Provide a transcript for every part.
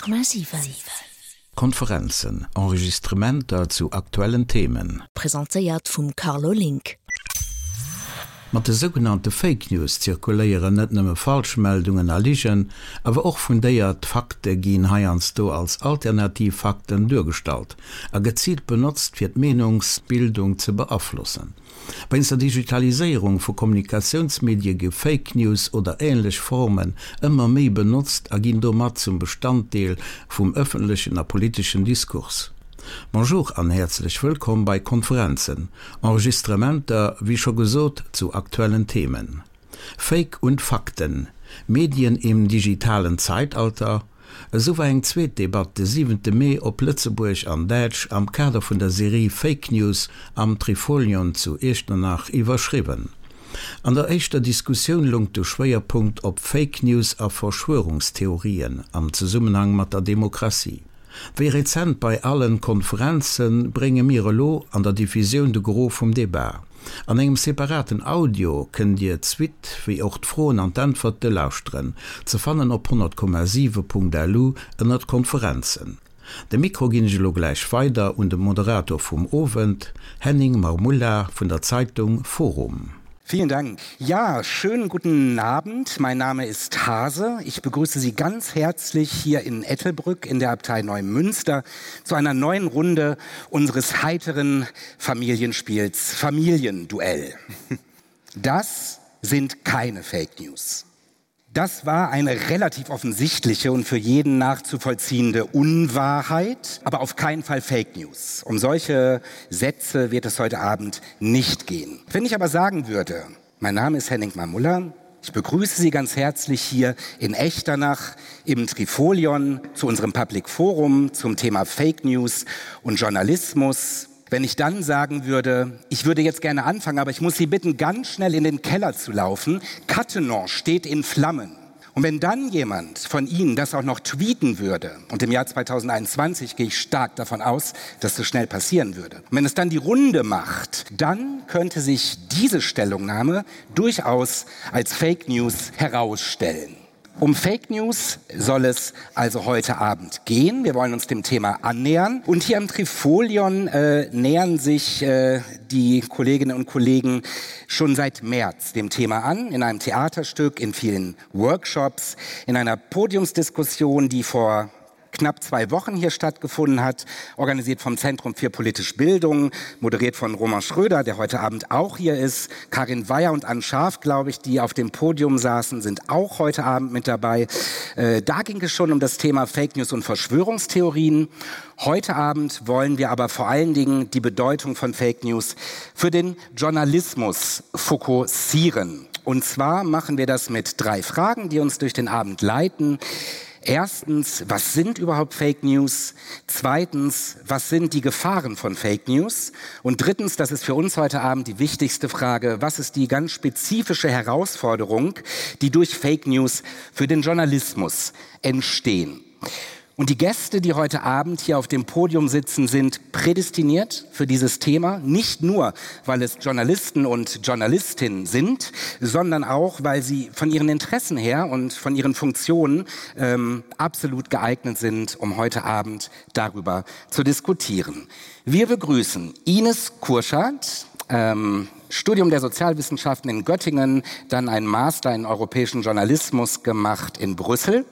100,7. Konferenzen, Enregistrementer zu aktuellen Themen. Presentéiert vum Carlo Link. Mat de sougenannte Fake News zirkuléieren net nëmme Falschmeldungen a Ligen, awer och fundéiert Fakte ginn heiansdo als alternativ Fakten duergestallt a geziilt benotzt fir d'Meenungsbildung ze beaflossen. Wéinst der Digitaliséierung vu Kommunikatiounsmedie gi Fake News oder änlech Formen ëmmer méi benotzt a ginn domat zum Bestanddeel vum ëffentlechen a politeschen Diskurs. Bonjour an häerzlech wëllkomm bei Konferenzen, Enregistrementer, wéi scho gesot, zu aktuellen Themen. Fake und Fakten, Medien im digitalen Zeitalter, Esou war eng zweet Debatt de siwente Mee op Lëtzebuerg an Däitsch am Kader vun der Serie Fake News am Trifolion zu Iechternach iwwerschriwwen. An der éischter Diskussioun loung de Schwéierpunkt op Fake News a Verschwörungstheorien am Zesummenhang mat der Demokratie. Wéi rezent bei allen Konferenzen, brénge mir elo an der Diffusioun de Gros vum Debat. An engem separaten Audio kënnt Dir d'Suite wéi och d'Froen an d'Äntwerte lauschteren, ze fannen op 100,7.lu ënnert Konferenzen. De Mikro ginn ech elo gläich weider un de Moderator vum Owend, Henning Marmulla vun der Zeitung forum. Vielen Dank. Ja, schönen guten Abend. Mein Name ist Hase. Ich begrüße Sie ganz herzlich hier in Ettelbrück in der Abtei Neumünster zu einer neuen Runde unseres heiteren Familienspiels Familienduell. Das sind keine Fake News. Das war eine relativ offensichtliche und für jeden nachzuvollziehende Unwahrheit, aber auf keinen Fall Fake News. Um solche Sätze wird es heute Abend nicht gehen. Wenn ich aber sagen würde, mein Name ist Henning Mamuller, ich begrüße Sie ganz herzlich hier in Echternach im Trifolion zu unserem Public Forum zum Thema Fake News und Journalismus. Wenn ich dann sagen würde, ich würde jetzt gerne anfangen, aber ich muss Sie bitten, ganz schnell in den Keller zu laufen. Cattenon steht in Flammen. Und wenn dann jemand von Ihnen das auch noch tweeten würde, und im Jahr 2021 gehe ich stark davon aus, dass das schnell passieren würde, und wenn es dann die Runde macht, dann könnte sich diese Stellungnahme durchaus als Fake News herausstellen. Um Fake News soll es also heute Abend gehen. Wir wollen uns dem Thema annähern. Und hier am Trifolion äh, nähern sich äh, die Kolleginnen und Kollegen schon seit März dem Thema an, in einem Theaterstück, in vielen Workshops, in einer Podiumsdiskussion, die vor knapp zwei Wochen hier stattgefunden hat, organisiert vom Zentrum für politische Bildung, moderiert von Roman Schröder, der heute Abend auch hier ist. Karin Weyer und Ann Scharf, glaube ich, die auf dem Podium saßen, sind auch heute Abend mit dabei. Äh, da ging es schon um das Thema Fake News und Verschwörungstheorien. Heute Abend wollen wir aber vor allen Dingen die Bedeutung von Fake News für den Journalismus fokussieren. Und zwar machen wir das mit drei Fragen, die uns durch den Abend leiten. Erstens, was sind überhaupt Fake News? Zweitens, was sind die Gefahren von Fake News? Und drittens, das ist für uns heute Abend die wichtigste Frage, was ist die ganz spezifische Herausforderung, die durch Fake News für den Journalismus entstehen? Und die Gäste, die heute Abend hier auf dem Podium sitzen, sind prädestiniert für dieses Thema. Nicht nur, weil es Journalisten und Journalistinnen sind, sondern auch, weil sie von ihren Interessen her und von ihren Funktionen ähm, absolut geeignet sind, um heute Abend darüber zu diskutieren. Wir begrüßen Ines Kurschat, ähm, Studium der Sozialwissenschaften in Göttingen, dann ein Master in europäischen Journalismus gemacht in Brüssel.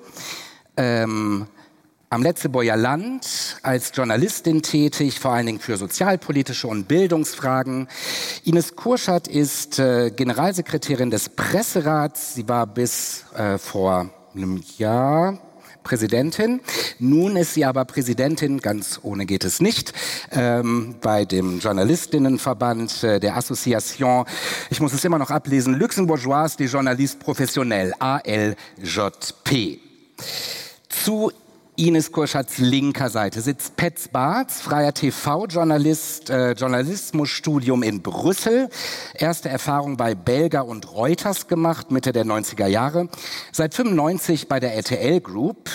Ähm, am Letzeboyer Land als Journalistin tätig, vor allen Dingen für sozialpolitische und Bildungsfragen. Ines Kurschat ist äh, Generalsekretärin des Presserats. Sie war bis äh, vor einem Jahr Präsidentin. Nun ist sie aber Präsidentin, ganz ohne geht es nicht, ähm, bei dem Journalistinnenverband äh, der Association, ich muss es immer noch ablesen, Luxembourgeois des Journalistes professionnels, ALJP. Zu Ines Kurschatz linker Seite sitzt Petz Barz, freier TV-Journalist, äh, Journalismusstudium in Brüssel, erste Erfahrung bei Belger und Reuters gemacht, Mitte der 90er Jahre, seit 95 bei der RTL Group.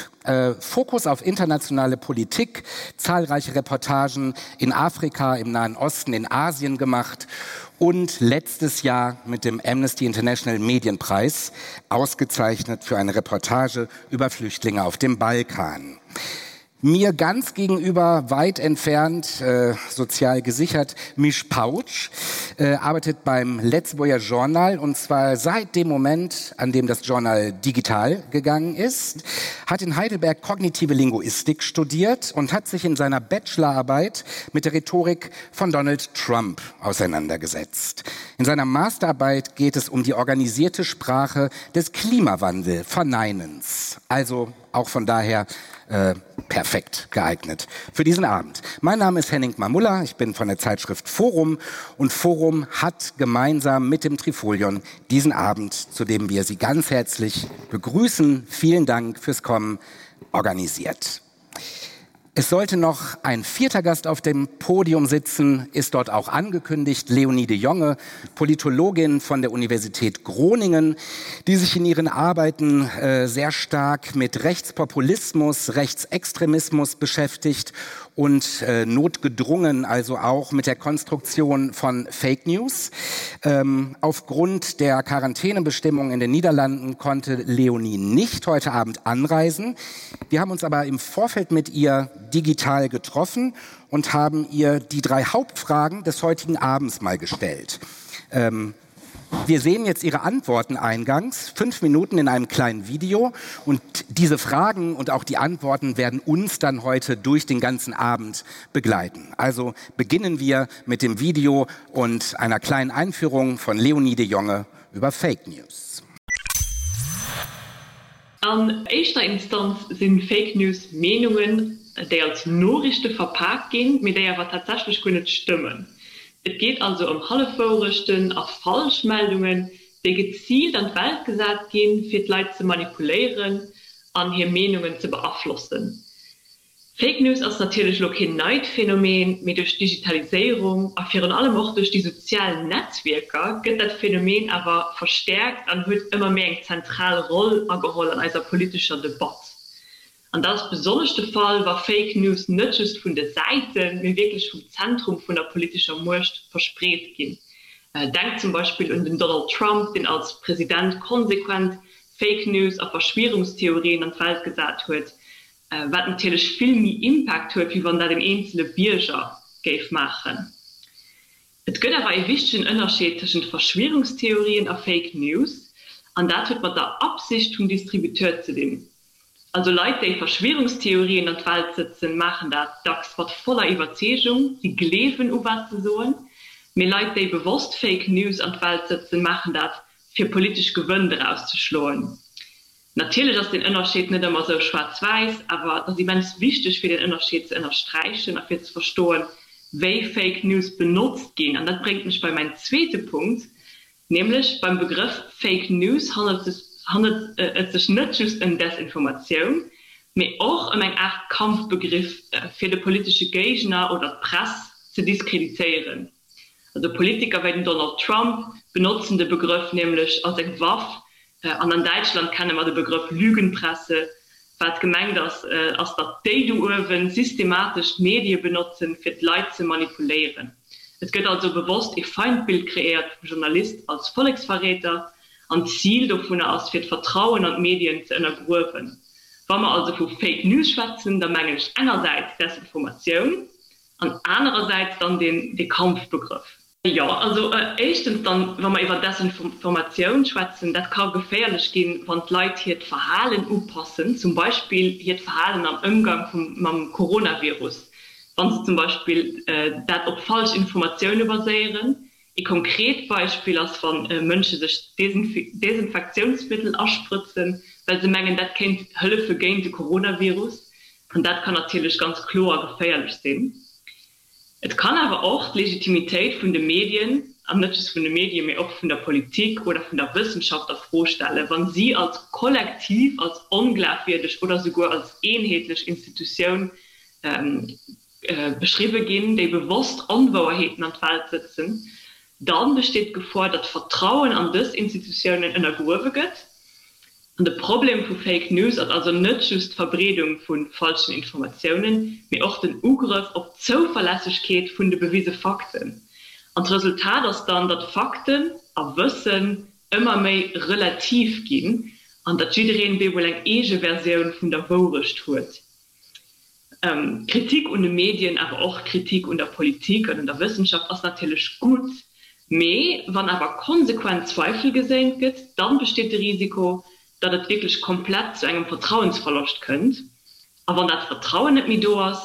Fokus auf internationale Politik, zahlreiche Reportagen in Afrika, im Nahen Osten, in Asien gemacht und letztes Jahr mit dem Amnesty International Medienpreis ausgezeichnet für eine Reportage über Flüchtlinge auf dem Balkan. Mir ganz gegenüber, weit entfernt, äh, sozial gesichert, Misch Pautsch, äh, arbeitet beim Lëtzebuerger Journal und zwar seit dem Moment, an dem das Journal digital gegangen ist, hat in Heidelberg kognitive Linguistik studiert und hat sich in seiner Bachelorarbeit mit der Rhetorik von Donald Trump auseinandergesetzt. In seiner Masterarbeit geht es um die organisierte Sprache des Klimawandelverneinens. Also auch von daher äh, perfekt geeignet für diesen Abend. Mein Name ist Henning Mamulla, ich bin von der Zeitschrift Forum und Forum hat gemeinsam mit dem Trifolion diesen Abend, zu dem wir Sie ganz herzlich begrüßen. Vielen Dank fürs Kommen organisiert. Es sollte noch ein vierter Gast auf dem Podium sitzen, ist dort auch angekündigt, Leonie de Jonge, Politologin von der Universität Groningen, die sich in ihren Arbeiten äh, sehr stark mit Rechtspopulismus, Rechtsextremismus beschäftigt und äh, notgedrungen, also auch mit der Konstruktion von Fake News. Ähm, aufgrund der Quarantänebestimmungen in den Niederlanden konnte Leonie nicht heute Abend anreisen. Wir haben uns aber im Vorfeld mit ihr digital getroffen und haben ihr die drei Hauptfragen des heutigen Abends mal gestellt. Ähm, wir sehen jetzt Ihre Antworten eingangs, fünf Minuten in einem kleinen Video. Und diese Fragen und auch die Antworten werden uns dann heute durch den ganzen Abend begleiten. Also beginnen wir mit dem Video und einer kleinen Einführung von Leonie de Jonge über Fake News. An éischter Instanz si Fake News Meenungen, déi als Noriichte verpak ginn, mee déi awer tatsächlech guer net stëmmen. Et geet also ëm Hallefwourechten a Falschmeldungen, déi geziilt an d'Welt gesat ginn, fir d'Leit ze manipuléieren an hir Meenungen ze beaflossen. Fake News ass natierlech elo keen neit Phänomen, mee duerch d'Digitaliséierung a virun allem och duerch déi sozial Netzwierker gëtt dat Phänomen awer verstäerkt an huet ëmmer méi eng zentral Roll ageholl an eiser politescher Debatt. An dat ass besonnesch de Fall, wa Fake News net just vun de Säiten, mee wierklech vum Zentrum vun der politescher Muecht verspreet ginn. Denkt zum Beispill un den Donald Trump, deen als President konsequent Fake News a Verschwierungstheorien an d'Welt gesat huet, Wat natierlech vill méi Impact huet, wéi wann dat en eenzele Bierger géif maachen. Et gëtt awer ee wichtegen Ënnerscheed tëschent Verschwierungstheorien a Fake News, an dat huet mat der Absicht vum Distributeur ze dinn. Also Leit, déi Verschwierungstheorien an d'Welt sëtzen, maachen dat dacks mat voller Iwwerzeegung, si gleewen u wat se soen. Mee Leit, déi bewosst Fake News an d'Welt sëtzen, maachen dat, fir politesch Gewënn doraus ze schloen. Natierlech ass deen Ënnerscheed net ëmmer esou schwaarz-wäiss, awer et ass immens wichteg fir deen Ënnerscheed ze ënnersträichen a fir ze verstoen, wéi Fake News benotzt ginn. An dat bréngt mech bei mäin zweete Punkt, nämlech beim Begrëff Fake News handelt et sech net just ëm Desinformatioun, mee och ëm eng Aart Kampfbegriff fir de politesche Géigner oder d'Press ze diskreditéieren. Also Politiker wéi den Donald Trump benotzen de Begrëff nämlech als eng Waff. An an Däitschland kenne mer de Begrëff Lügenpresse. Wat gemengt ass, ass datt déi do uewen systematesch d'Medie benotzen, fir d'Leit ze manipuléieren. Et gëtt also bewosst ee Feindbild kreéiert vum Journalist als Volleksverräter an d'Zil dovunner ass, fir d'Vertrauen an d'Medien ze ënnergruewen. Wa mer also vu Fake News schwätzen, da mengen ech engersäits Desinformatioun, An anerersäits dann deen dee Kampfbegrëff. Jo, also éischtens dann, wa mer iwwer Desinformatioun schwätzen, dat ka geféierlech ginn, wann d'Leit hiert Verhalen upassen, zum Beispill hiert Verhalen am Ëmgang vum mam Coronavirus, wa se zum Beispill dat op falsch Informatioune baséieren. Ee konkret Beispill ass, wa Mënsche sech Desinfektiounsmëttel asprëtzen, well se mengen, dat kéint hëllefe géint de Coronavirus. An dat kann natierlech ganz kloer geféierlech sinn. Et kann awer och d'Legitimitéit vun de Medien, an net just vun de Medien, mee och vun der Politik oder vun der Wëssenschaft a Fro stellen, wa si als Kollektiv als onglafwierdeg oder souguer als eenheetlech Institutioun beschriwwe ginn, déi bewosst Onwouerheeten an d'Welt sëtzen. Da besteet d'Gefor, datt d'Vertrauen an dës Institutiounen ënnergruewe gëtt. An de Problem vu Fake News ass also net just d'Verbreedung vu falschen Informatiounen, mee och den Ugrëff op d'Zouverlässegkeet vun de bewise Fakten. An d'Resultat ass dann, datt Fakten a Wëssen ëmmer méi relativ ginn an datt jiddereen bemol eng eege Versioun vun der Wourecht huet. Kritik un de Medien, awer och Kritik un der Politik an un der Wëssenschaft ass natierlech gutt, mee wann awer konsequent Zweifel geséint gëtt, dann besteet de Risiko, datt et wierklech komplett zu engem Vertrauensverloscht kënnt. A wann dat Vertrauen net méi do ass,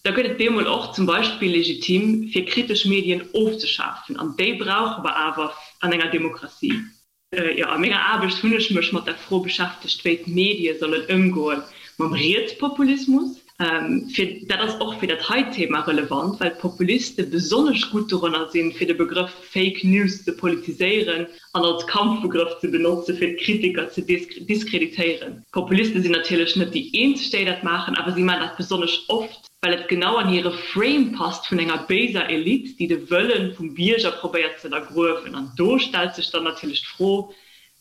da gëtt et bemol och zum Beispill legitim, fir kritesch Medien ofzeschafen. An déi brauche mer awer an enger Demokratie. Jo, a menger Aarbecht hunn ech mech mat der Fro beschäftegt, wéi d'Medie sollen ëmgoe mam Rietspopulismus. Fir dat ass och fir dat hei Thema relevant, well d'Populiste besonnesch gutt doranner sinn, fir de Begrëff Fake News ze politiséieren an als Kampfbegrëff ze benotze fir d'Kritiker ze diskreditéieren. D'Populiste sinn natierlech net déi eenzeg, déi dat maachen, awer si maachen dat besonnesch oft, well et genau an hire Frame passt vun enger béiser Elite, déi de Wëlle vum Bierger probéiert ze ënnergruewen. An do stellt sech dann natierlech d'Fro,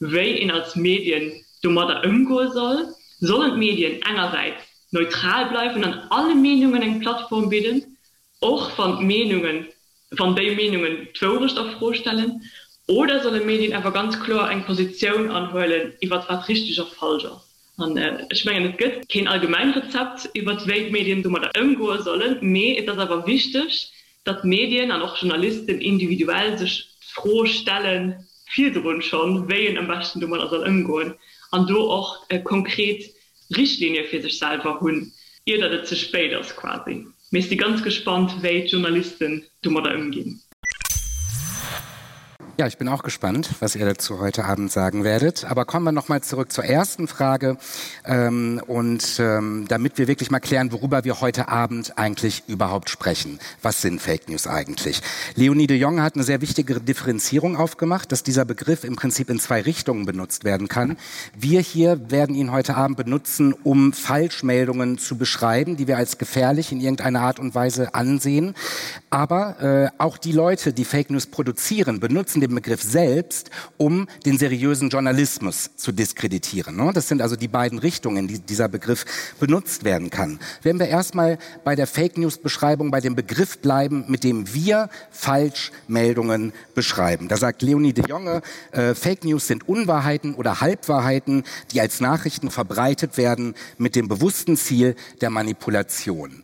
wéi een als Medien domadder ëmgoe soll. Sollen d'Medien engersäits neutral bleiwen an alle Meenungen eng Plattform bidden, och wann d'Meenungen, wann déi Meenungen d'Wourecht a Fro stellen, oder solle Medien awer ganz kloer eng Positioun anhuelen iwwert wat richteg a falsch ass? An ech mengen, et gëtt keen allgemein Rezept iwwert wéi d'Medien domadder ëmgoe sollen, mee et ass awer wichteg, datt Medien an och Journalisten individuell sech d'Fro stellen, virdrun schonn, wéi een am beschten domadder soll ëmgoen an do och konkret Richtlinie fir sech selwer hunn, ier datt et ze spéit ass quasi. Mee ech si ganz gespannt, wéi d'Journalisten domadder ëmginn. Ja, ich bin auch gespannt, was ihr dazu heute Abend sagen werdet. Aber kommen wir noch mal zurück zur ersten Frage ähm, und ähm, damit wir wirklich mal klären, worüber wir heute Abend eigentlich überhaupt sprechen. Was sind Fake News eigentlich? Leonie de Jong hat eine sehr wichtige Differenzierung aufgemacht, dass dieser Begriff im Prinzip in zwei Richtungen benutzt werden kann. Wir hier werden ihn heute Abend benutzen, um Falschmeldungen zu beschreiben, die wir als gefährlich in irgendeiner Art und Weise ansehen. Aber äh, auch die Leute, die Fake News produzieren, benutzen den Begriff selbst, um den seriösen Journalismus zu diskreditieren. Ne? Das sind also die beiden Richtungen, die dieser Begriff benutzt werden kann. Wenn wir erstmal bei der Fake News Beschreibung bei dem Begriff bleiben, mit dem wir Falschmeldungen beschreiben. Da sagt Leonie de Jonge, äh, Fake News sind Unwahrheiten oder Halbwahrheiten, die als Nachrichten verbreitet werden mit dem bewussten Ziel der Manipulation.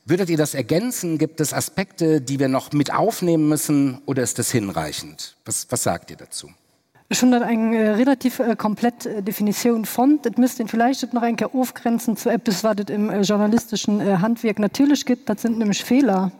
Würdet ihr das ergänzen? Gibt es Aspekte, die wir noch mit aufnehmen müssen oder ist das hinreichend? Was, was sagt ihr dazu? Ech hunn dat eng relativ komplett Definitioun fonnt. Et misst een villäicht et nach eng Kéier ofgrenzen zu eppes, wat et im journalisteschen Handwierk natierlech gëtt, dat sind nämlech Feeler,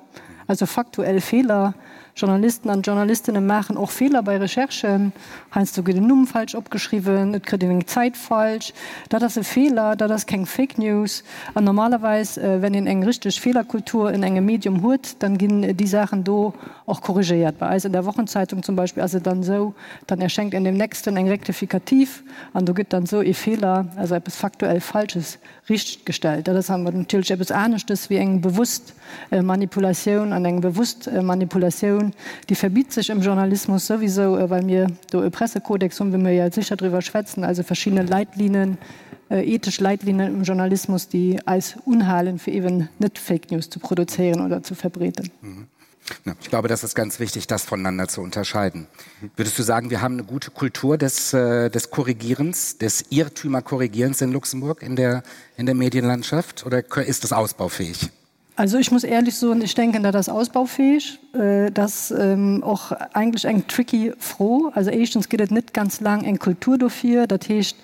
also faktuell Feeler. Journalisten an Journalistinnen maachen och Feeler bei Recherchen. Heiansdo gëtt en Numm falsch opgeschriwwen, et kritt een eng Zäit falsch. Dat ass e Feeler, dat ass keng Fake News. An normalerweis, wenn een eng richteg Feelerkultur in engem Medium huet, dann ginn déi Saachen do och korrigéiert. Bei eis an der Wochenzeitung zum Beispill ass et dann esou, dann erschenkt in dem nächsten eng Rectificative an do gëtt dann esou ee Feeler, also eppes faktuell Falsches, richtgestellt. Dat ass awer natierlech eppes aneschtes wéi eng bewusst Manipulatioun. An eng bewusst Manipulatioun, déi verbitt sech im Journalismus souwisou, well mir do e Pressekodex hunn, wou mir jo sécher driwwer schwätzen, also verschidde Leitlinen, ethesch Leitlinen im Journalismus, déi eis unhalen, fir eeben net Fake News ze produzéieren oder ze verbreeden. Ja, ich glaube, das ist ganz wichtig, das voneinander zu unterscheiden. Würdest du sagen, wir haben eine gute Kultur des, äh, des Korrigierens, des Irrtümerkorrigierens in Luxemburg in der, in der Medienlandschaft oder ist das ausbaufähig? Also ich muss ehrlich so und ich denke da das ausbaufähig äh, das ähm, och eigentlich eng tricky froh also erstens geht net ganz lang eng Kultur dafür dat heescht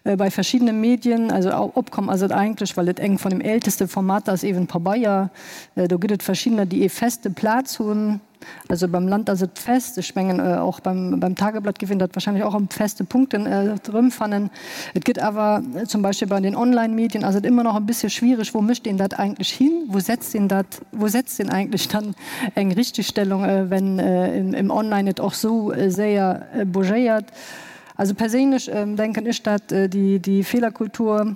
äh, bei verschiedenen Medien also opkommen also eigentlich weil et eng von dem älteste Format ass eben Pabeier äh, do gëtt et verschiedener déi ee feste Plaz hunn also beim Land ass et fest ech mengen äh, och beim, beim Tageblatt géif een dat wahrscheinlich och am feste Punkten äh, erëmfannen. Et gëtt awer äh, zum Beispiel bei den Online-Medien ass et immer noch e bisschen schwierig, wo mécht een dat eigentlich hin, wo setzt een dat, wo setzt een eigentlich dann eng Richtigstellung, äh, wenn äh, im, im Online et och sou äh, séier äh, bougéiert. Also perséinlech denken ech, dat déi Feelerkultur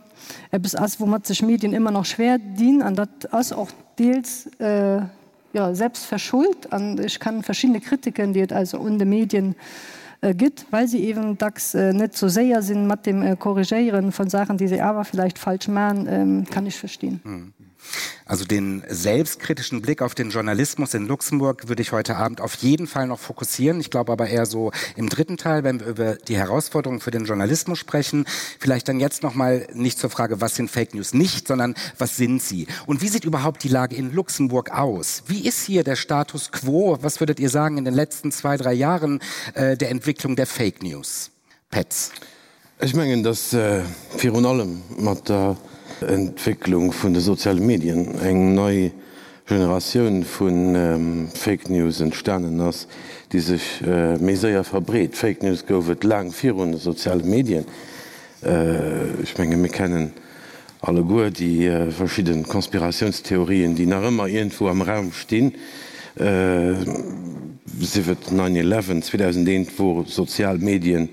eppes ass, woumat sech Medien ëmmer nach schwer dinn. An dat ass och deels, jo, selbst verschuld. An ech kann verschiddene Kritiken, déi et also un de Medien. gëtt, well se eben dacks net sou séier sinn mat dem Korrigéieren von Sachen, déi se awer vielleicht falsch man, kann ech verstinn. Also den selbstkritischen Blick auf den Journalismus in Luxemburg würde ich heute Abend auf jeden Fall noch fokussieren. Ich glaube aber eher so im dritten Teil, wenn wir über die Herausforderungen für den Journalismus sprechen, vielleicht dann jetzt noch mal nicht zur Frage, was sind Fake News nicht, sondern was sind sie? Und wie sieht überhaupt die Lage in Luxemburg aus? Wie ist hier der Status quo? Was würdet ihr sagen in den letzten zwei, drei Jahren äh, der Entwicklung der Fake News? Petz. Ech mengen, datt virun allem mat der Entwécklung vun de soziale Medien eng nei Generatioun vu Fake News entstanen ass, déi sech méi séier verbreet. Fake News gouf et laang virun de soziale Medien. Ech menge mir kennen alleguer déi verschidde Konspiratiounstheorien, déi nach ëmmer iergendwou am Raum stinn, sief et Nine Eleven, 2001 wor sozial Medien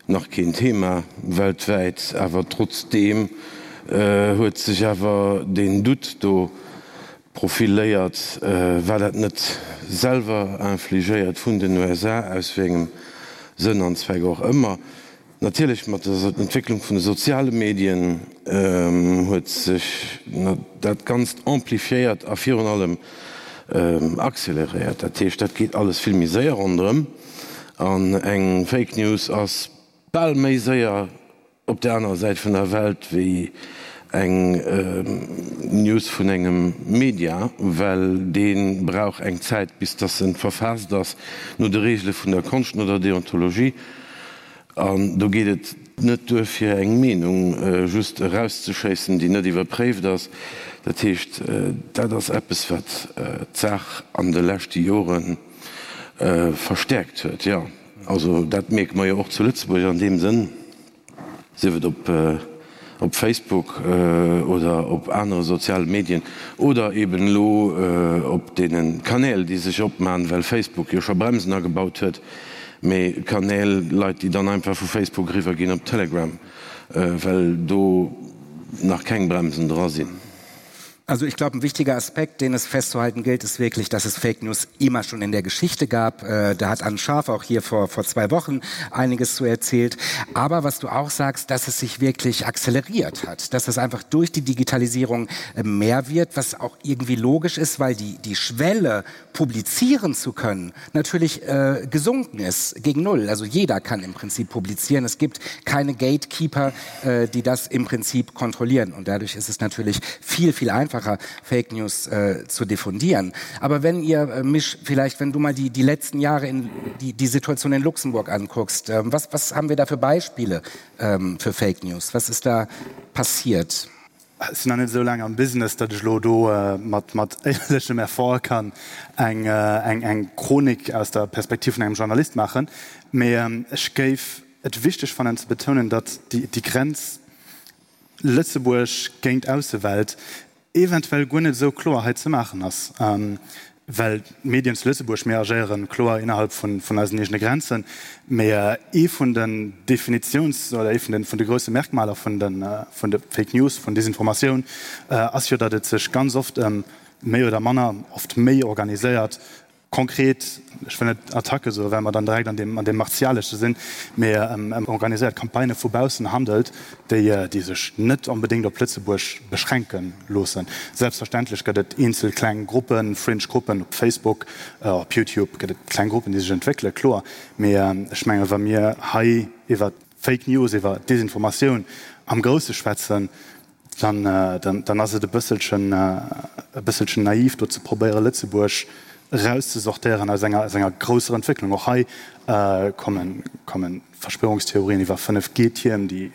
nach keen Thema weltwäit, awer trotzdeem huet sech awer deen Doute do profiléiert, war dat net selwer infligéiert vun den USA, aus wéi engem Sënn an Zweck och ëmmer. Natierlech mat der Entwécklung vun de soziale Medien huet sech dat Ganzt amplifiéiert a virun allem acceleréiert. Dat heescht, dat geet alles vill méi séier ronderëm an eng Fake News ass bal méi séier op der anerer Säit vun der Welt wéi eng News vun engem Media, well dee brauch eng Zäit bis dass en verfaasst ass no de Reegele vun der Konscht, no der Deontologie. An do geet et net duer fir eng Meenung just erauszeschéissen, déi net iwwerpréift ass. Dat heescht, dat ass eppes, wat d'Saach an de leschte Jore verstäerkt huet. Jo, also dat mierke mer jo och zu Lëtzebuerg an deem Sënn. Sief et op op Facebook oder op anere soziale Medien oder eben elo op deene Kanäl, déi sech opmachen, well Facebook jo scho Bremsen agebaut huet, mee Kanäl, Leit, déi dann einfach vu Facebook eriwwer ginn op Telegram, well do nach keng Bremsen dra sinn. Also ich glaube, ein wichtiger Aspekt, den es festzuhalten gilt, ist wirklich, dass es Fake News immer schon in der Geschichte gab. Äh, da hat Anne Scharf auch hier vor, vor zwei Wochen einiges zu erzählt. Aber was du auch sagst, dass es sich wirklich akzeleriert hat, dass es einfach durch die Digitalisierung äh, mehr wird, was auch irgendwie logisch ist, weil die, die Schwelle, publizieren zu können, natürlich äh, gesunken ist gegen Null. Also jeder kann im Prinzip publizieren. Es gibt keine Gatekeeper, äh, die das im Prinzip kontrollieren. Und dadurch ist es natürlich viel, viel einfacher, Fake News äh, zu diffundieren. Aber wenn ihr äh, mich vielleicht, wenn du mal die, die letzten Jahre in die, die Situation in Luxemburg anguckst, äh, was, was haben wir da für Beispiele ähm, für Fake News? Was ist da passiert? Ech sinn nach net esou laang am Business, datt ech elo do mat mat éierlechem Effort kann eng eng eng Chronik aus der Perspektiv vun engem Journalist maachen. Mee ech géif et wichteg fannen ze betounen, datt déi déi Grenz Lëtzebuerg géint Aussewelt eventuell guer net esou kloer hei ze maachen ass. Well d'Medien zu Lëtzebuerg, mir agéiere kloer innerhalb vun eisen eegene Grenzen, mee ee vun den Definitiouns oder ee vun de grousse Merkmaler vun de Fake News, vun Desinformatioun ass jo, datt et sech ganz oft ëm méi oder manner, oft méi organiséiert, konkret, ech wëll net Attacke soen, well mer dann direkt an deem Martialesche sinn, mee ëm organiséiert Campagnë vu baussen handelt, déi déi sech net onbedéngt op Lëtzebuerg beschränke loossen. Selbstverständlech gëtt et eenzel kleng Gruppen, Fringe Gruppen op Facebook, op YouTube gëtt et kleng Gruppen, déi sech entwéckelen, kloer. Mee ech menge wa mir hei iwwer Fake News, iwwer Desinformatioun am Grousse schwätzen, dann dann ass et e bësselchen e bësselchen naiv do ze probéiere Lëtzebuerg erauszesortéieren aus enger aus enger grousser Entwécklung. Och hei kommen kommen Verschwörungstheorien iwwer 5G-Tierm, déi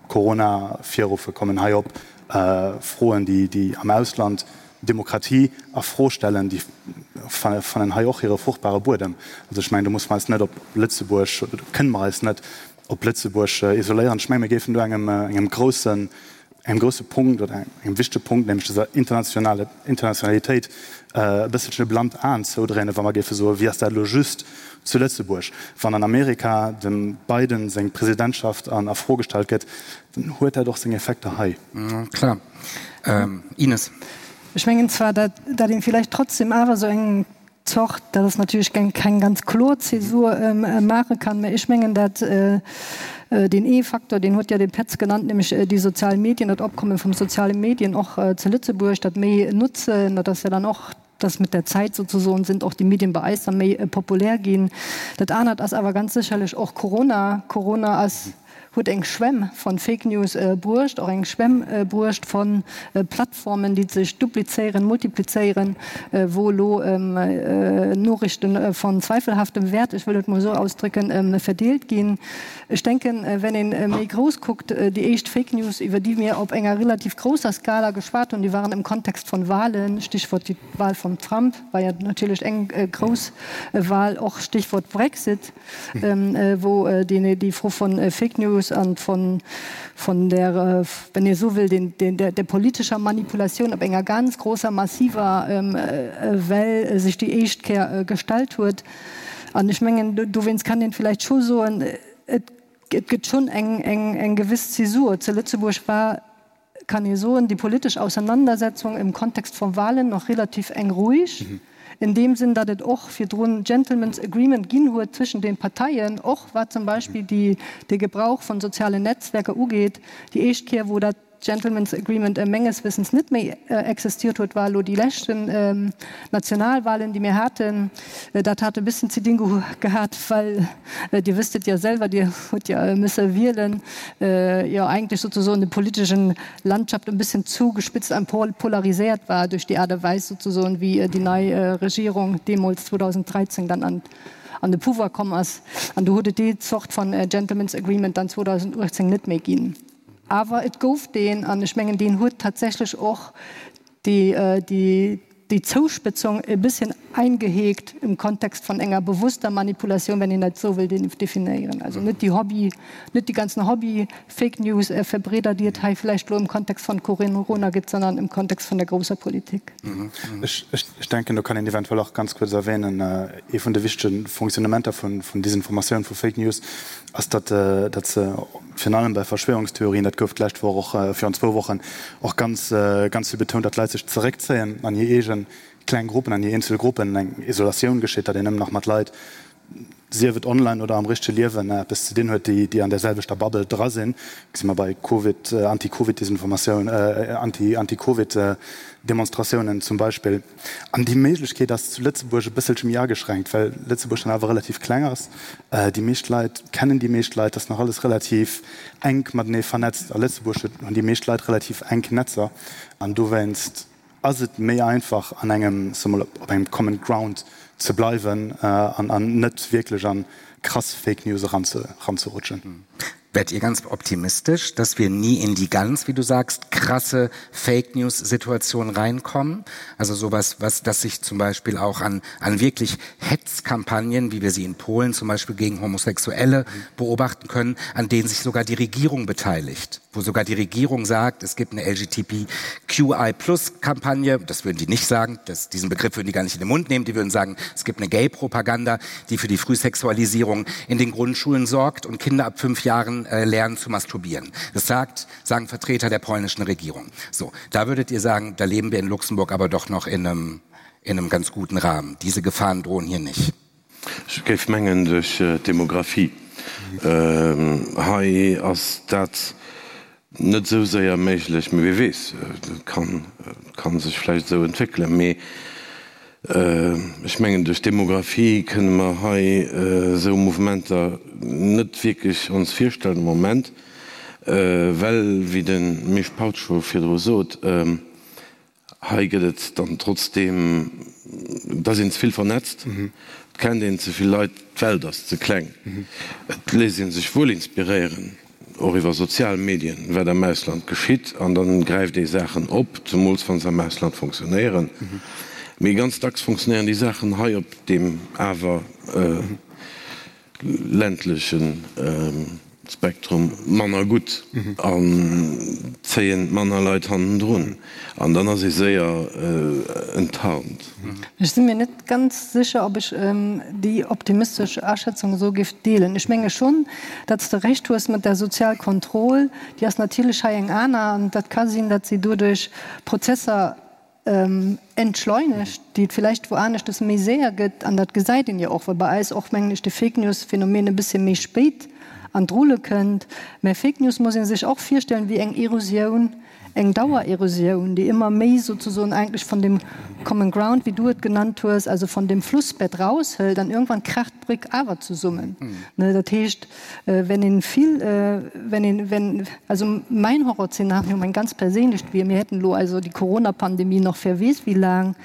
Corona virruffe, kommen hei op. Froen, déi am Ausland Demokratie a Fro stellen, déi fannen hei och hire fruchtbare Buedem. Also ech mengen, do musse mer eis net op Lëtzebuerg, oder do kënne mer eis net op Lëtzebuerg isoléieren. Ech menge mir géifen do engem engem groussen engem grousse Punkt oder engem wichtege Punkt, nämlech dëser internationale Internationalitéit, e bësselchen e blannt Aen zoudréinen, wa mer géife soen, wéi ass dat elo just zu Lëtzebuerg? Wann an Amerika dem Biden seng Presidentschaft a Fro gestallt gëtt, dann huet dat och seng Effekter hei. Klar. Ines. Ech mengen zwar, dat een villäicht trotzdem awer esou eng. Zort, dat ass natierlech eng keng ganz kloer Zäsur, maache kann. Mä ech mengen, dat deen ee Faktor, deen huet jo de Petz genannt, nämlech déi sozial Medien, dat Opkomme vum soziale Medien och zu Lëtzebuerg, dat méi notzen, dat ass jo dann och, dass mit der Zeit sozusagen sind och die Medien bei eis dann méi populär ginn. Dat anert ass awer ganz sécherlech och Corona. Corona ass huet eng Schwämm von Fake News bruecht, och eng Schwämm bruecht von Plattformen, déi sech duplizéieren, multiplizéieren, wou elo Noriichten von zweifelhaftem Wert, ech wëll et mol esou ausdrücken, verdeelt ginn. Ech denken, wenn ee méi grouss kuckt, déi éischt Fake News, iwwer déi mir op enger relativ grousser Skala geschwat hunn, déi waren im Kontext von Wahlen, Stichwort déi Wahl vum Trump war jo natierlech eng grouss Wahl, och Stichwort Brexit. wou déi Fro von Fake News an von von der, wenn ee esou wëll, den der der politescher Manipulatioun op enger ganz grousser, massiver Well sech déi éischt Kéier gestallt huet. An ech mengen, dowéinst kann een vläicht scho soen, et gëtt schonn eng eng gewëss Zäsur. Zu Lëtzebuerg war kann ee soen, déi politesch Auseinandersetzung im Kontext von Wahlen noch relativ eng ruhig, in deem Sinn, datt et och virdrun Gentlemen's Agreement ginn huet zwëschen den Parteien, och wat zum Beispill déi, de Gebrauch von sozialen Netzwerker ugeet. Déi éischt Kéier, wou dat Gentlemen's Agreement menges Wissens net méi existiert huet, war elo déi leschten Nationalwahlen, déi mir haten. Dat hat e bëssen ze dinn gehat, well, Dir wësst et jo selwer, Dir hutt jo müsse wielen, jo eigentlech sozusoen de politeschen Landschaft e bëssen zugespitzt an polariséiert war duerch déi Aart a Weis sozusoen, wéi déi nei Regierung deemools 2013 dann an an de Pouvoir komm ass. An do huet et déi Zort von Gentlemen's Agreement dann 2018 net méi ginn. Awer et gouf deen, an ech mengen, deen huet tatsächlech och déi déi Zouspëtzung e bësschen eingeheekt im Kontext von enger bewusster Manipulation, wenn een dat esou wëll definéieren. Also net déi Hobby, net déi ganzen Hobby-Fake News-Verbreeder, déi et hei vläicht elo im Kontext von Corona gëtt, sondern im Kontext von der grousser Politik. Ech denken, do kann een eventuell och ganz kuerz erwähnen, ee vun de wichtege Fonctionnementer vun Desinformatioun, vu Fake News, ass, datt se virun allem bei Verschwörungstheorien, dat gouf d'lescht Woch och, virun zwou Wochen och ganz, ganz vill betount, datt d'Leit sech zeréckzéien an hir eege kleng Gruppen, an hir eenzel Gruppen, eng Isolatioun geschitt, datt een nëmmen nach mat Leit, sief et online oder am richtege Liewen, eppes ze dinn huet, déi, déi an där selwechter Bubble dra sinn. Gesi mer bei Covid, Anti-Covid-Desinformatioun, Anti, Anti-Covid-Demonstratiounen zum Beispill. An déi Méiglechkeet ass zu Lëtzebuerg e bësselche méi ageschränkt, well Lëtzebuerg dann awer relativ kleng ass. Déi meescht Leit kennen déi meescht Leit, ass nach alles relativ enk matenee vernetzt. A Lëtzebuerg huet, hunn déi meescht Leit relativ enk Netzer an dowéinst ass et méi einfach an engem, soe mol, op engem common ground ze bleiwen an an net wierklech an krass Fake News eranzerutschen. Werdet ihr ganz optimistisch, dass wir nie in die ganz, wie du sagst, krasse Fake News Situation reinkommen? Also sowas, was das sich zum Beispiel auch an, an wirklich Hetzkampagnen, wie wir sie in Polen zum Beispiel gegen Homosexuelle beobachten können, an denen sich sogar die Regierung beteiligt, wo sogar die Regierung sagt, es gibt eine LGTBQI plus Kampagne, das würden die nicht sagen, das, diesen Begriff würden die gar nicht in den Mund nehmen, die würden sagen, es gibt eine Gay-Propaganda, die für die Frühsexualisierung in den Grundschulen sorgt und Kinder ab fünf Jahren äh, lernen zu masturbieren. Das sagt, sagen Vertreter der polnischen Regierung. So, da würdet ihr sagen, da leben wir in Luxemburg aber doch noch in einem, in einem ganz guten Rahmen. Diese Gefahren drohen hier nicht. Ech géif mengen duerch d'Demographie. Hei ass dat net esou séier méiglech, mee wie weess, et ka sech vläicht esou entwéckelen. Mee ech mengen duerch d'Demographie kënne mer hei esou Mouvementer net wierklech ons virstellen am Moment, well, wéi de Misch Pautsch scho virdru sot, Hei gëtt et dann trotzdeem, et ass een ze vill vernetzt, et kennt een ze vill Leit, d'Welt ass ze kleng. Et léisst ee sech wuel inspiréieren, och iwwer sozial Medien, wat am Ausland geschitt, an dann gräift ee Saachen op, zemools wa se am Ausland funktionéieren. Mee ganz dacks funktionéieren déi Saachen hei op deem awer ländlechen Spektrum manner gutt an zéien manner Leit hannendrun an dann ass ee séier enttarnt. Ech si mir net ganz sécher, ob ech déi optimistesch Aschätzung esou géif deelen. Ech menge schonn, datt s de Recht hues mat der Sozialkontroll, déi ass natierlech hei eng aner an dat ka sinn, datt si doduerch Prozesser. Entschleunegt, déi et villäicht wou aneschtes méi séier gëtt, an dat gesäit een jo och, well bei eis och, mengen ech, de Fake-News-Phänomen e bëssche méi spéit an d'Rulle kënnt. Mä Fake News muss ee sech och virstellen wéi eng Erosioun, eng Dauererosioun, déi ëmmer méi sozesoen eigentlech von dem Common Ground, wéi du et genannt hues, also von dem Flussbett raushëlt an irgendwann kracht d'Bréck awer zesummen. Dat heescht, Wenn een vill, wenn een, wenn, also mäin Horrorszenario, mäin ganz perséinlecht wier, mir hätten elo also déi Corona-Pandemie nach wer weess wéi laang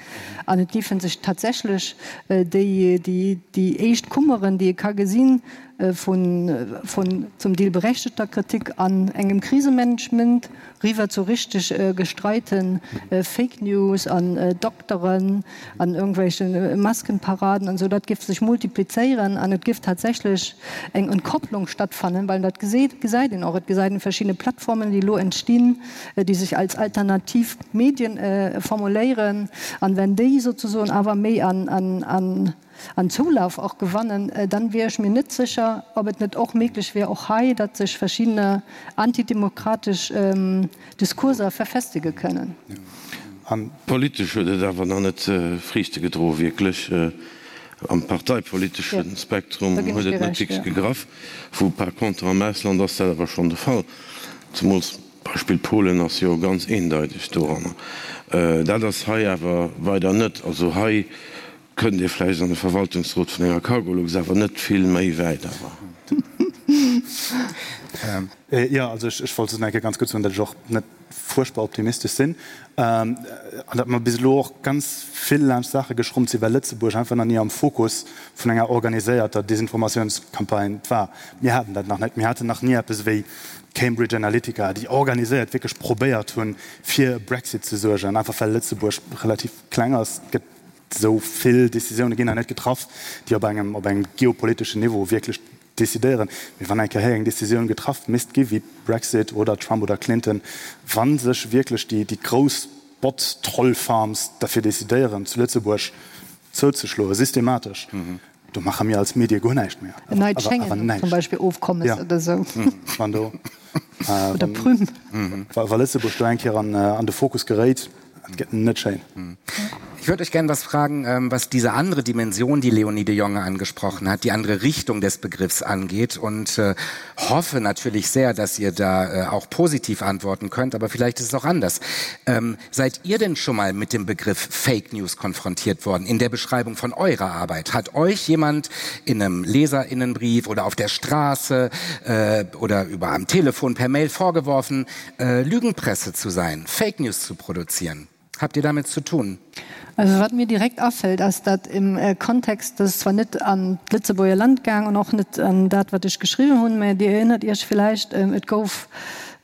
an et géife sech tatsächlech déi, déi, déi éischt Kummeren, déi ee ka gesinn, vun, vun zum Deel berechtegter Kritik an engem Krisemanagement riwwer zu richteg gestreite Fake News an Dokteren an irgendwelche Maskenparaden an esou, dat géif sech multiplizéieren an et géif tatsächlech eng Entkopplung stattfannen, well dat gesäit een och, et gesäit een verschidde Plattformen, déi elo entstinn, déi sech als alternativ Medien formuléieren an wenn déi sozesoen awer méi an An Zoulaf och gewannen, dann wier ech mir net sécher, ob et net och méiglech wier, och hei, datt sech verschiddene antidemokratesch Diskurser verfestege kënnen. Politesch huet et awer nach net Friichte gedroen, wierklech. Am parteipolitesche Spektrum huet et net wierklech gegraff, wou par contre am Ausland ass dat awer schonn de Fall, zemools Beispill Polen ass jo ganz eendeiteg doranner. Dat ass hei awer weider net. Also hei Kënnt ee vläicht an de Verwaltungsrot vun enger Cargolux, awer net vill méi wäit awer. Jo, also ech wollt just nach eng Kéier ganz kuerz soen, datt ech och net fuerchtbar optimistesch sinn an datt mer bis elo och ganz vill laanscht Saache geschrommt sinn, well Lëtzebuerg einfach nach ni am Fokus vun enger organiséierter Desinformatiounscampagne war. Mir haten dat nach net. Mir haten nach ni eppes ewéi Cambridge Analytica, déi organiséiert wierklech probéiert hunn, fir e Brexit ze suergen, einfach well Lëtzebuerg relativ kleng ass. Et gëtt Esou vill Décisioune ginn hei net getraff, déi op engem, op engem geopoliteschen Niveau wierklech décidéieren. Mee wann eng Kéier hei eng Décisioun getraff misst gi wéi Brexit oder Trump oder Clinton, wa sech wierklech déi, déi grouss Bot-Troll-Farms derfir décidéieren, zu Lëtzebuerg zouzeschloen, systematesch, do maache mir als Medie guer näischt méi. En neit Schengen zum Beispill Ofkommes oder esou. Wann do, Oder Prüm. Wa Lëtzebuerg do eng Kéier an de Fokus geréit, Et gëtt net schéin. Ich würde euch gern was fragen, ähm, was diese andere Dimension, die Leonie de Jonge angesprochen hat, die andere Richtung des Begriffs angeht und äh, hoffe natürlich sehr, dass ihr da äh, auch positiv antworten könnt, aber vielleicht ist es auch anders. Ähm, seid ihr denn schon mal mit dem Begriff Fake News konfrontiert worden in der Beschreibung von eurer Arbeit? Hat euch jemand in einem Leserinnenbrief oder auf der Straße äh, oder über am Telefon per Mail vorgeworfen, äh, Lügenpresse zu sein, Fake News zu produzieren? Habt ihr damit zu tun? Also wat mir direkt afällt, ass dat im äh, Kontext, dat ass zwar net an d'Lëtzebuerger Land gaang an och net an dat wat ech geschriwwen hunn, mä Dir erinnert Iech villäicht, ähm, et gouf,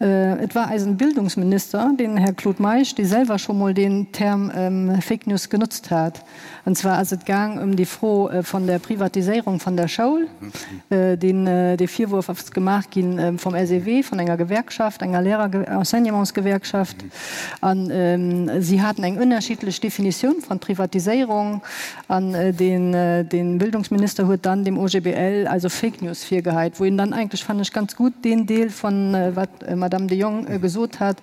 äh, et war eisen Bildungsminister, den Här Claude Meisch, dee selwer scho mol deen Term ähm, Fake News genotzt hat. An zwar ass et gaang ëm déi Fro von der Privatiséierung von der Schoul. Deen, dee Virwurf ass gemaach gi vom SEW, von enger Gewerkschaft, enger Lehrer-, Enseignementsgewerkschaft. An si haten eng ënnerschiddlech Definitioun von Privatiséierung. An deen, dee Bildungsminister huet dann dem OGBL also Fake News virgeheit, wou een dann eigentlech, fannen ech, ganz gutt deen Deel von wat d'Madame de Jong gesot hat,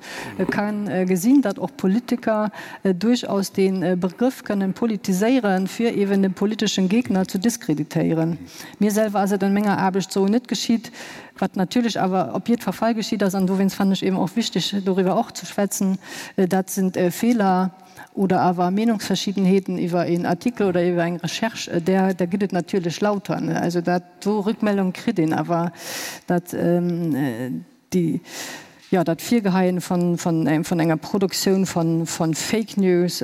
ka gesinn, datt och Politiker duerchaus dee Begrëff kënnen politiséieren, fir eeben de politeschen Gegner zu diskreditéieren. Mir selwer ass et an menger Aarbecht sou net geschitt, wat natierlech awer op jiddfer Fall geschitt ass, an dowéinst fannen ech eeben och wichteg, doriwwer och ze schwätzen, dat sind Feeler oder awer Meenungsverschiedenheeten iwwer een Artikel oder iwwer eng Recherche, där där gëtt et natierlech lauter. Also dat do Rückmeldung kritt een awer, dat. Déi, jo, dat Virgeheien von, von, von enger Produktioun von, von Fake News,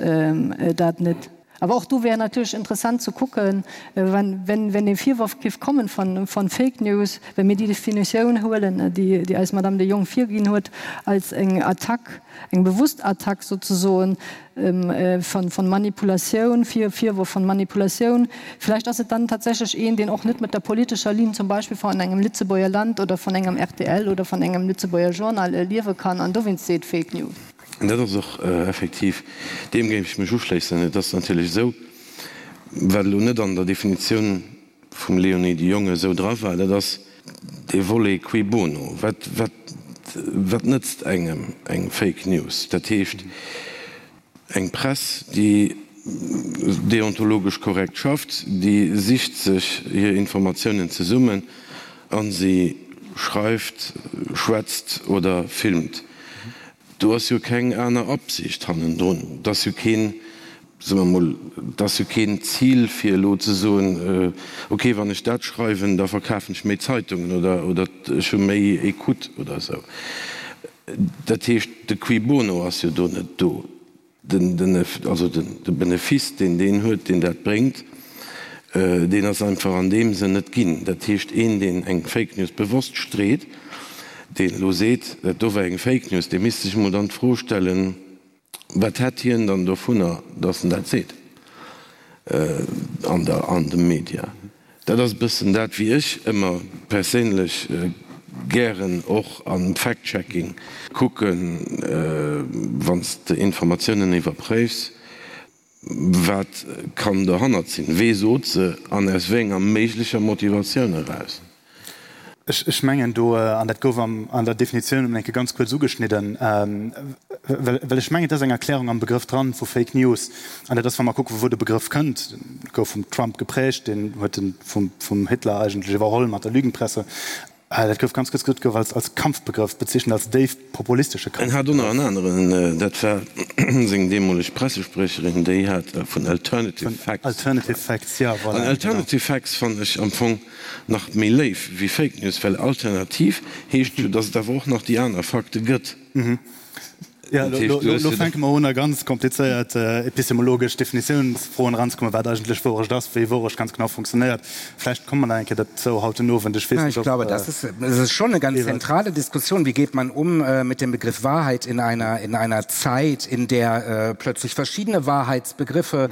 dat net. Awer och do wär natierlech interessant ze kucken, wenn, wenn, wenn dee Virworf géif kommen von, von Fake News, well mir déi Definitioun huelen, déi, déi eis Madame de Jong virginn huet, als eng Attack, eng bewusst Attack sozesoen, von Manipulatioun, Virwurf von Manipulatioun. Vielleicht ass et dann tatsächlech een, deen och net mat der politescher Linn zum Beispill von engem Lëtzebuerger Land oder von engem rtl oder von engem Lëtzebuerger Journal liewe kann an dowéinst seet Fake News. Dat ass och effektiv, deem géif ech mech uschléissen. Et ass natierlech esou, wat elo net an der Definitioun vum Léonie de Jonge esou dra war, dat ass dee Volet cui bono, wat, wat, wat nëtzt engem eng Fake News? Dat heescht, Eng Press, déi deontologesch korrekt schafft, déi sicht sech hir Informatiounen zesummen a si schreift, schwätzt oder filmt. Do ass jo keng aner Absicht hannendrun. Et ass jo keen, soe mer emol, et ass jo keen Zil fir elo ze soen, okay, wann ech dat schreiwen, da verkafen ech méi Zeitungen oder oder ech hu méi Ecoute oder esou. Dat heescht, de Cui bono ass jo do net do. Den, den, also den, de Benefice, deen deen huet, deen dat bréngt, deen ass einfach an deem Sënn net ginn. Dat heescht, een, deen eng Fake News bewosst street, deen elo seet, dat do war eng Fake News, dee misst sech emol dann d'Fro stellen, Wat hätt hien dann dovunner, datt en dat seet an der, an de Media? Dat ass e bëssen dat, wéi ech ëmmer perséinlech gären och am Fact-Checking kucken, wann s de Informatiounen iwwerpréifs, wat kann dohannert sinn, wee sot se an aus wéi enger méiglecher Motivatioun eraus? Ech mengen do, an dat gouf an der Definitioun emol eng Kéier ganz kuerz ugeschnidden, well ech mengen, et ass eng Erklärung am Begrëff dran vu Fake News, an dat ass, wa mer kucken, vu wou de Begrëff kënnt, gouf vum Trump geprägt, deen huet e vum Hitler eigentlech iwwerholl mat der Lügenpresse. Dat gouf ganz kuerz gesot, gouf als als Kampfbegrëff bezeechent, als déif populistesche En hat och nach en aneren, dat war seng deemoleg Pressespriecherin, déi hat vun Alternative Facts. Alternative Facts, jo, voilà. An Alternative Facts fannen ech am Fong nach méi léif wéi Fake News, well alternativ heescht jo, datt et awer och nach déi aner Fakte gëtt. Jo, elo fänke mer un a ganz komplizéiert epistemologesch Definitiounsfroen eranzekommen, wat eigentlech Wourecht ass, wéi Wourecht ganz genau funktionéiert. Vläicht komme mer nach eng Kéier dozou haut den Owend, ech weess net, ob. Ich glaube, das ist, das ist schon eine ganz zentrale Diskussion. Wie geht man um mit dem Begriff Wahrheit in einer, in einer Zeit, in der plötzlich verschiedene Wahrheitsbegriffe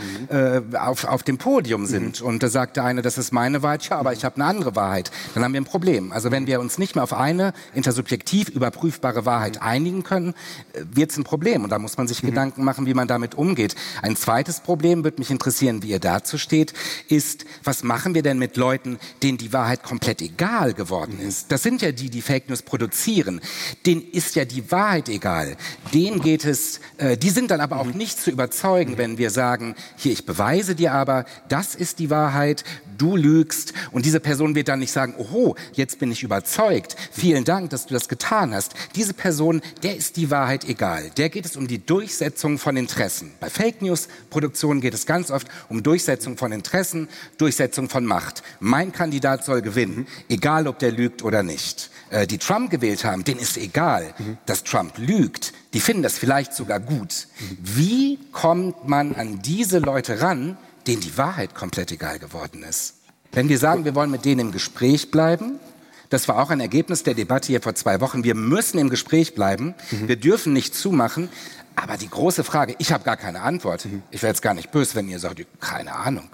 auf, auf dem Podium sind? Und da sagt der eine, das ist meine Wahrheit, ja, aber ich habe eine andere Wahrheit. Dann haben wir ein Problem. Also wenn wir uns nicht mehr auf eine intersubjektiv überprüfbare Wahrheit einigen können, äh, wird es ein Problem. Und da muss man sich mhm. Gedanken machen, wie man damit umgeht. Ein zweites Problem, würde mich interessieren, wie ihr dazu steht, ist, was machen wir denn mit Leuten, denen die Wahrheit komplett egal geworden mhm. ist? Das sind ja die, die Fake News produzieren. Denen ist ja die Wahrheit egal. Denen geht es, äh, die sind dann aber auch mhm. nicht zu überzeugen, mhm. wenn wir sagen, hier, ich beweise dir aber, das ist die Wahrheit, du lügst. Und diese Person wird dann nicht sagen, oho, jetzt bin ich überzeugt. Vielen Dank, dass du das getan hast. Diese Person, der ist die Wahrheit egal. Der geht es um die Durchsetzung von Interessen. Bei Fake News Produktionen geht es ganz oft um Durchsetzung von Interessen, Durchsetzung von Macht. Mein Kandidat soll gewinnen, egal ob der lügt oder nicht. Äh, die Trump gewählt haben, denen ist egal, mhm. dass Trump lügt. Die finden das vielleicht sogar gut. Mhm. Wie kommt man an diese Leute ran, denen die Wahrheit komplett egal geworden ist? Wenn wir sagen, wir wollen mit denen im Gespräch bleiben, das war auch ein Ergebnis der Debatte hier vor zwei Wochen. Wir müssen im Gespräch bleiben. Mhm. Wir dürfen nicht zumachen. Aber die große Frage, ich habe gar keine Antwort. Mhm. Ich wäre jetzt gar nicht böse, wenn ihr sagt, keine Ahnung.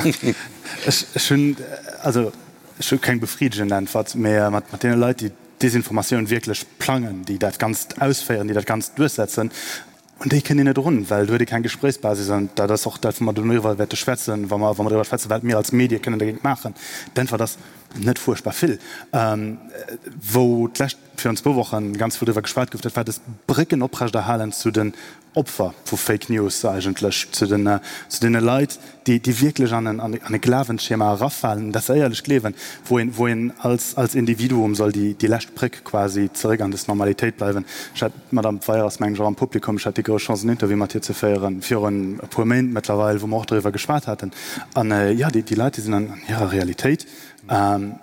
Ech hunn, also ech hu keng befriddegend Äntwert, mä mat deene Leit, déi d'Desinformatioun wierklech plangen, déi dat Ganzt ausféieren, déi dat Ganzt duerchsetzen, un déi kënnt een net erun, well do huet ee keng Gespréichsbasis. An dat ass och dat, wou mer dono iwwer wäerte schwätzen, wa mer, wa mer driwwer schwätzen, wat mir als Medie kënnen dagéint maachen. D'Äntwert ass, net fuerchtbar vill. Wou d'lescht, virun zwou Wochen ganz vill driwwer geschwat gouf, dat war dës Brécken oprechterhalen zu den Opfer vu Fake News eigentlech, zu den, zu deene Leit, déi, déi wierklech an en, an e Glawensschema erafalen, dat se éierlech gleewen, wou een, wou een als, als Individuum soll déi, déi lescht Bréck quasi zeréck an des Normalitéit bleiwen. Ech hat, d'Madame Weyer ass, mengen ech, och am Publikum, ech hat déi grouss Chance, en Interview mat hir ze féieren, virun e puer Méint mëttlerweil, wou mer och doriwwer geschwat haten. An, jo, déi, déi Leit, déi sinn an hirer Realitéit. An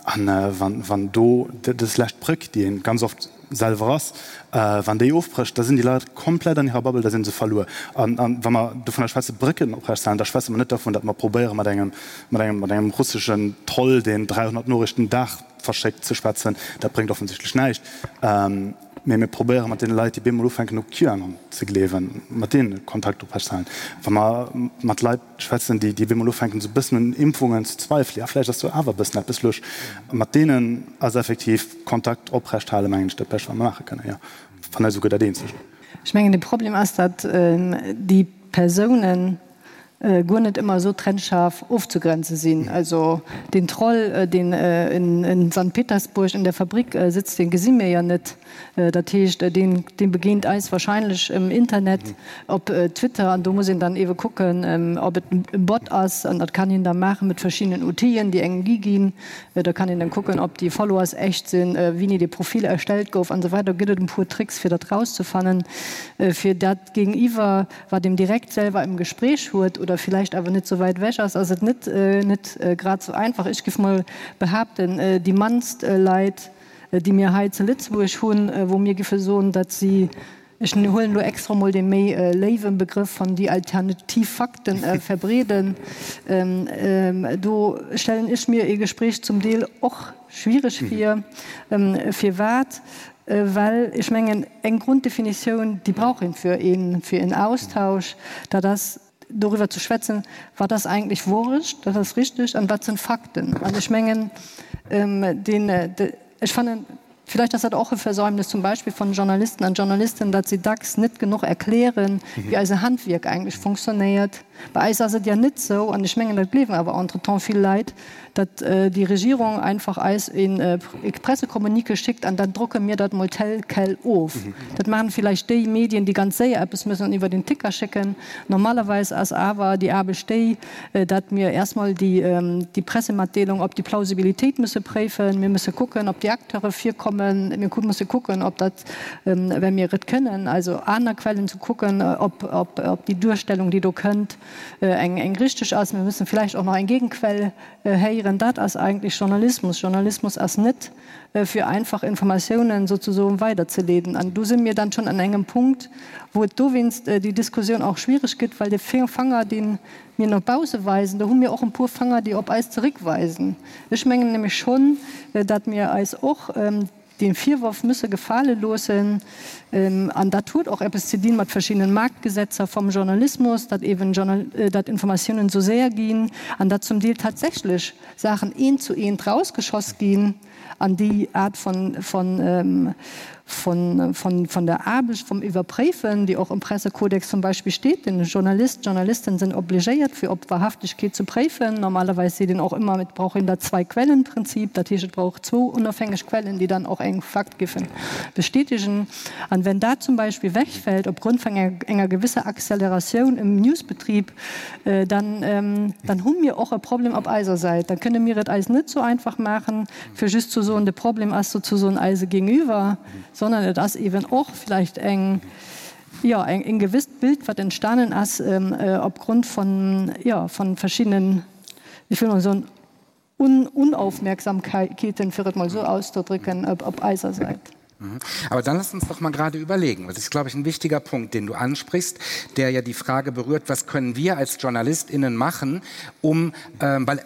wann, wann do dës lescht Bréck, déi een ganz oft selwer ass, wann déi ofbrécht, da sinn déi Leit komplett an hirer Bubble, da si se verluer. An wa mer dovunner schwätzen, Brécken oprechtzehalen, da schwätze mer net dervun, datt mer probéiere mat engem, mat engem, mat engem russeschen Troll, deen 300 Noriichten den Dag verschéckt, ze schwätzen. Dat bréngt offensichtlech näischt. Mee mir probéiere mat deene Leit, déi bemol ufänken u QAnon ze gleewen, mat deene Kontakt oprechtzehalen. Wa mer mat Leit schwätzen, déi bemol ufänken esou e bëssen un Impfungen ze zweifelen, ja vläicht ass do awer e bëssen eppes lusch, mat deenen ass effektiv Kontakt oprecht halen, mengen ech, dat Bescht wat mer maache kënnen, jo, wann net esouguer dat Eenzegt. Ech mengen de Problem ass, datt déi Persounen. guer net ëmmer esou trennscharf ofzegrenze sinn. Also deen Troll, deen in Sankt Petersburg in der Fabrik sëtzt, dee gesi mir jo net. Dat heescht, deen begéint eis wahrscheinlech um Internet, op Twitter, an do muss een dann eebe kucken, ob et e Bot ass. An dat kann een da maache mat verschiddenen Outill'en, déi engem gi ginn. Da kann een dann kucken, ob déi Followers echt sinn, wéini dee Profil erstellt gouf an esou weider. Do gëtt et e puer Tricks, fir dat rauszefannen, fir dat Géigeniwwer, wat een direkt selwer im Gespräch huet oder vielleicht awer net sou wäit ewech ass, ass et net net grad sou einfach. Ech giff mol behaapten, déi mannst Leit, déi mir hei zu Lëtzebuerg hunn, wou mir giffe soen, datt si, ech huelen elo extra mol dee méi léiwe Begrëff von déi alternativ Fakten verbreeden, do stellen ech mir ee Gespräch zum Deel och schwiereg vir. Firwat? Well ech mengen, eng Grunddefinitioun, déi brauch een fir een, fir een Austausch, dat ass doriwwer ze schwätzen, wat ass eigentlech Wourecht, dat ass richtig, an wat sinn Fakten. An ech mengen, deen, ech fannen, vielleicht ass dat och e Versäumnis zum Beispill von Journalisten an Journalistinnen, datt si dacks net genuch erklären, wéi eise Handwierk eigentlech funktionéiert. Bei eis ass et jo net esou, an ech mengen, dat gleewen awer entretemps vill Leit, datt déi Regierung einfach eis e Pressecommuniqué schickt an dann drucke mir dat mol tel quel of. Dat maachen villäicht déi Medien, déi ganz séier eppes müssen iwwer den Ticker schécken. Normalerweis ass awer déi Aarbecht déi, datt mir erst mol déi Pressematdeelung op déi Plausibilitéit musse préifen. Mir musse kucken, ob déi Acteure virkommen. Mir musse kucken, ob dat, well mir et kënnen, also aner Quellen ze kucken, ob déi Duerstellung, déi do kënnt, eng richteg ass. Mir müssen vielleicht och nach eng Gegenquell héieren. Dat ass eigentlech Journalismus. Journalismus ass net, fir einfach Informatiounen sozusoen weiderzeleeden. An do si mir dann schonn an engem Punkt, wou et dowéinst déi Diskussioun och schwierig gëtt, well de Fanger, dee mir no bausse weisen, do hu mir och e puer Fanger, déi op eis zeréckweisen. Ech mengen nämlech schonn, datt mir eis och, dee Virworf müsse gefale loossen, an dat huet och eppes ze dinn mat verschiddenen Marktgesetzer vom Journalismus, datt eben datt Informatiounen esou séier ginn an datt zum Deel tatsächlech Saachen eent zu eent rausgeschoss ginn an déi Aart von von von von von der Aarbecht vom Iwwerpréifen, déi och im Pressekodex zum Beispill steet, den Journalist, d'Journalisten sinn obligéiert fir op Wahrhaftigkeet ze préifen. Normalerweis seet een och ëmmer, et brauch een dat Zwei-Quellen-Prinzip, dat heescht et brauch zwou onofhängeg Quellen, déi dann och eng Fakt giffen bestätigen. An wenn dat zum Beispill wegfällt opgrund vun enger gewisser Acceleratioun im Newsbetrieb, dann dann hu mir och e Problem op eiser Säit. Da kënne mir et eis net sou einfach maachen, fir just ze soen, de Problem ass sozusoen eise Gegenüber, sondern et ass eben och vielleicht eng, jo, eng, en gewisst Bild, wat entstanen ass opgrund von, jo, von verschiedenen, ech wëll mol soen, Unaufmerksamkeiten, fir et mol esou auszudrücken, op eiser Säit. Aber dann lass uns doch mal gerade überlegen. Das ist, glaube ich, ein wichtiger Punkt, den du ansprichst, der ja die Frage berührt, was können wir als JournalistInnen machen, um, ähm, weil, äh,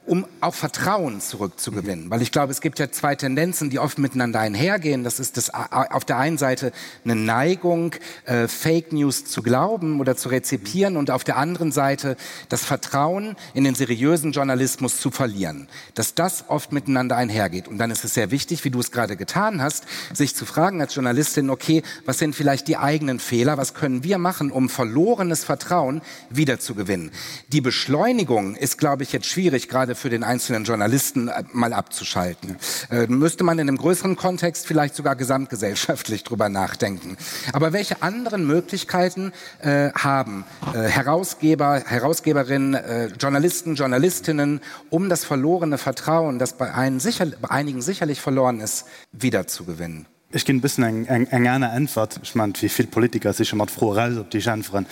um auch Vertrauen zurückzugewinnen. Mhm. Weil ich glaube, es gibt ja zwei Tendenzen, die oft miteinander einhergehen. Das ist das, auf der einen Seite eine Neigung, äh, Fake News zu glauben oder zu rezipieren und auf der anderen Seite das Vertrauen in den seriösen Journalismus zu verlieren. Dass das oft miteinander einhergeht. Und dann ist es sehr wichtig, wie du es gerade getan hast, sich zu fragen als Journalistin, okay, was sind vielleicht die eigenen Fehler? Was können wir machen, um verlorenes Vertrauen wiederzugewinnen? Die Beschleunigung ist, glaube ich, jetzt schwierig, gerade für den einzelnen Journalisten äh, mal abzuschalten. Äh, müsste man in einem größeren Kontext vielleicht sogar gesamtgesellschaftlich drüber nachdenken. Aber welche anderen Möglichkeiten äh, haben äh, Herausgeber, Herausgeberinnen, äh, Journalisten, Journalistinnen, um das verlorene Vertrauen, das bei, einen sicher, bei einigen sicherlich verloren ist, wiederzugewinnen? Ech ginn e bëssen eng, eng, eng aner Äntwert. Ech mengen, wéi vill Politiker si scho mat Froe raus, op déi ech äntweren.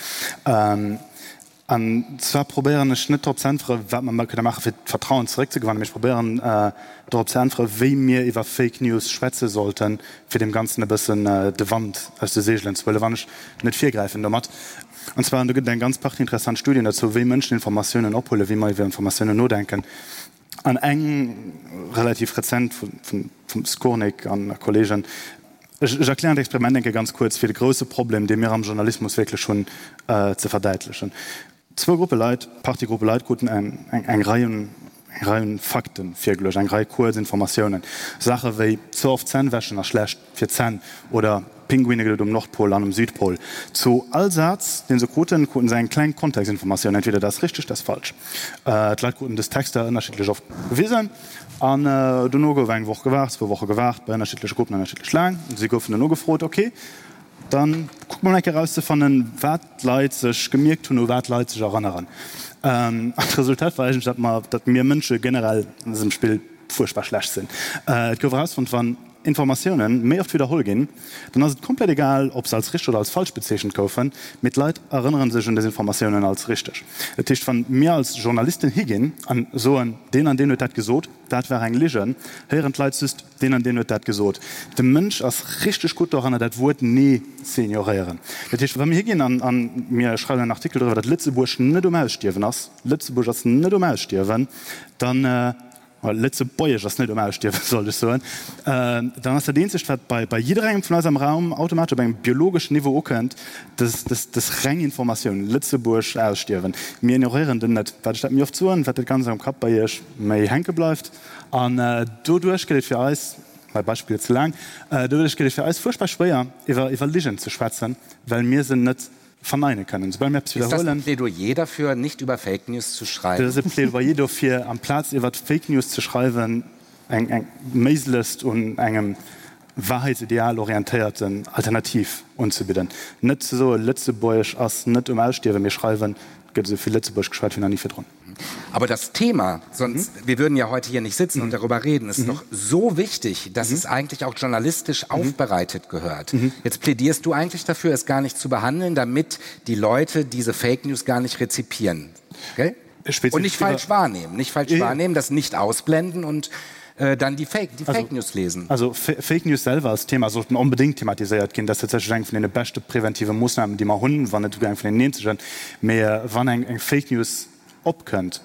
An zwar probéieren ech net drop ze äntweren, wat mer kënne maachen, fir d'Vertrauen zeréckzegewannen, mee ech probéieren dorop ze äntweren, wéi mir iwwer Fake News schwätze sollten, fir deem Ganzen e bëssen de Wand aus de Seegelen ze huelen, wann ech net virgräifen domat. An zwar, an do gëtt et eng ganz Partie interessant Studien dozou, wéi Mënschen Informatiounen ophuelen, wéi mer iwwer Informatiounen nodenken. An eng relativ rezent vum Skurnik an Kollegen. Ech erklären d'Experiment eng Kéier ganz kuerz, fir de grouse Problem, dee mir am Journalismus wierklech hunn, ze verdäitlechen. Zwou Gruppe Leit, Partie Gruppe Leit kruten eng Rei un eng Rei un Fakte virgeluecht, eng Rei kuerz Informatiounen, Saache wéi ze oft Zänn wäschen ass schlecht fir d'Zänn oder. Pinguine gëtt et um Nordpol an um Südpol. Zu all Saz, dee se kruten, kruten se eng kleng Kontextinformatioun, entweder dat ass richteg, dat ass falsch. D'Leit kruten dës Texter ënnerschiddlech oft gewisen an dono gouf eng Woch gewaart, zwou Woche gewaart, bei ënnerschiddleche Gruppen ënnerschiddlech laang. Si goufen dono gefrot, Ok, da kucke mer mol eng Kéier erauszefannen, wat d'Leit sech gemierkt hunn, u wat d'Leit sech erënneren. An d'Resultat war eigentlech, datt mer, datt mir Mënsche generell an dësem Spill fuerchtbar schlecht sinn. Et gouf erausfonnt, wann Informatioune méi oft widderholl ginn, dann ass et komplett egal, ob se als richteg oder als falsch bezeechent goufen, mee d'Leit erënnere sech un dës Informatiounen als richteg. Dat heescht, wann mir als Journalisten higinn an soen, deen an deen huet dat gesot, dat war eng Ligen, héieren d'Leit just, deen an deen huet dat gesot. De Mënsch ass richteg gutt doranner, dat Wuert nee ze ignoréieren. Dat heescht, wa mir higinn an mir schreiwen en Artikel doriwwer, datt Lëtzebuerg net um Ausstierwen ass, Lëtzebuerg ass net um Ausstierwen, dann, Lëtzebuergesch ass net um Ausstierwen, sollt ech soen, dann ass dat eenzegt, wat bei bei jidderengem vun eis am Raum automatesch op engem biologeschen Niveau ukënnt, dës dës dës reng Informatioun, Lëtzebuerg ausstierwen. Mir ignoréieren den net. Wat ech dat méi oft soen, wat dat Ganzt am Kapp bei Iech méi hänke bleift. An doduerch gëtt et fir eis, mäi Beispill gëtt ze laang, doduerch gëtt et fir eis fuerchtbar schwéier, iwwer iwwer Ligen ze schwätzen, well mir se net verneine kënnen. Soubal mir eppes Ist das ein Plädoyer dafür, nicht über Fake News zu schreiben? Dat ass e Plädoyer dofir, amplaz iwwer Fake News ze schreiwen, eng eng méiglechst un engem Wahrheitsideal orientéierten Alternativ unzebidden. Net ze soen, Lëtzebuergesch ass net um Ausstierwen, mee schreiwen, et gëtt esou vill Lëtzebuergesch geschwat wéi nach ni virdrun. Aber das Thema, sonst, wir würden ja heute hier nicht sitzen und darüber reden, ist doch so wichtig, dass es eigentlich auch journalistisch aufbereitet gehört. Jetzt plädierst du eigentlich dafür, es gar nicht zu behandeln, damit die Leute diese Fake News gar nicht rezipieren. Okay? Und nicht falsch wahrnehmen, nicht falsch wahrnehmen, das nicht ausblenden und äh, dann die Fake, die Fake News lesen. Also Fake News selwer als Thema sollten onbedéngt thematiséiert ginn. Dat ass tatsächlech eng vun deene beschte preventive Moossnamen, déi mer hunn, wann net esouguer eng vun deenen eenzegen. Mee wann eng eng Fake News opkënnt,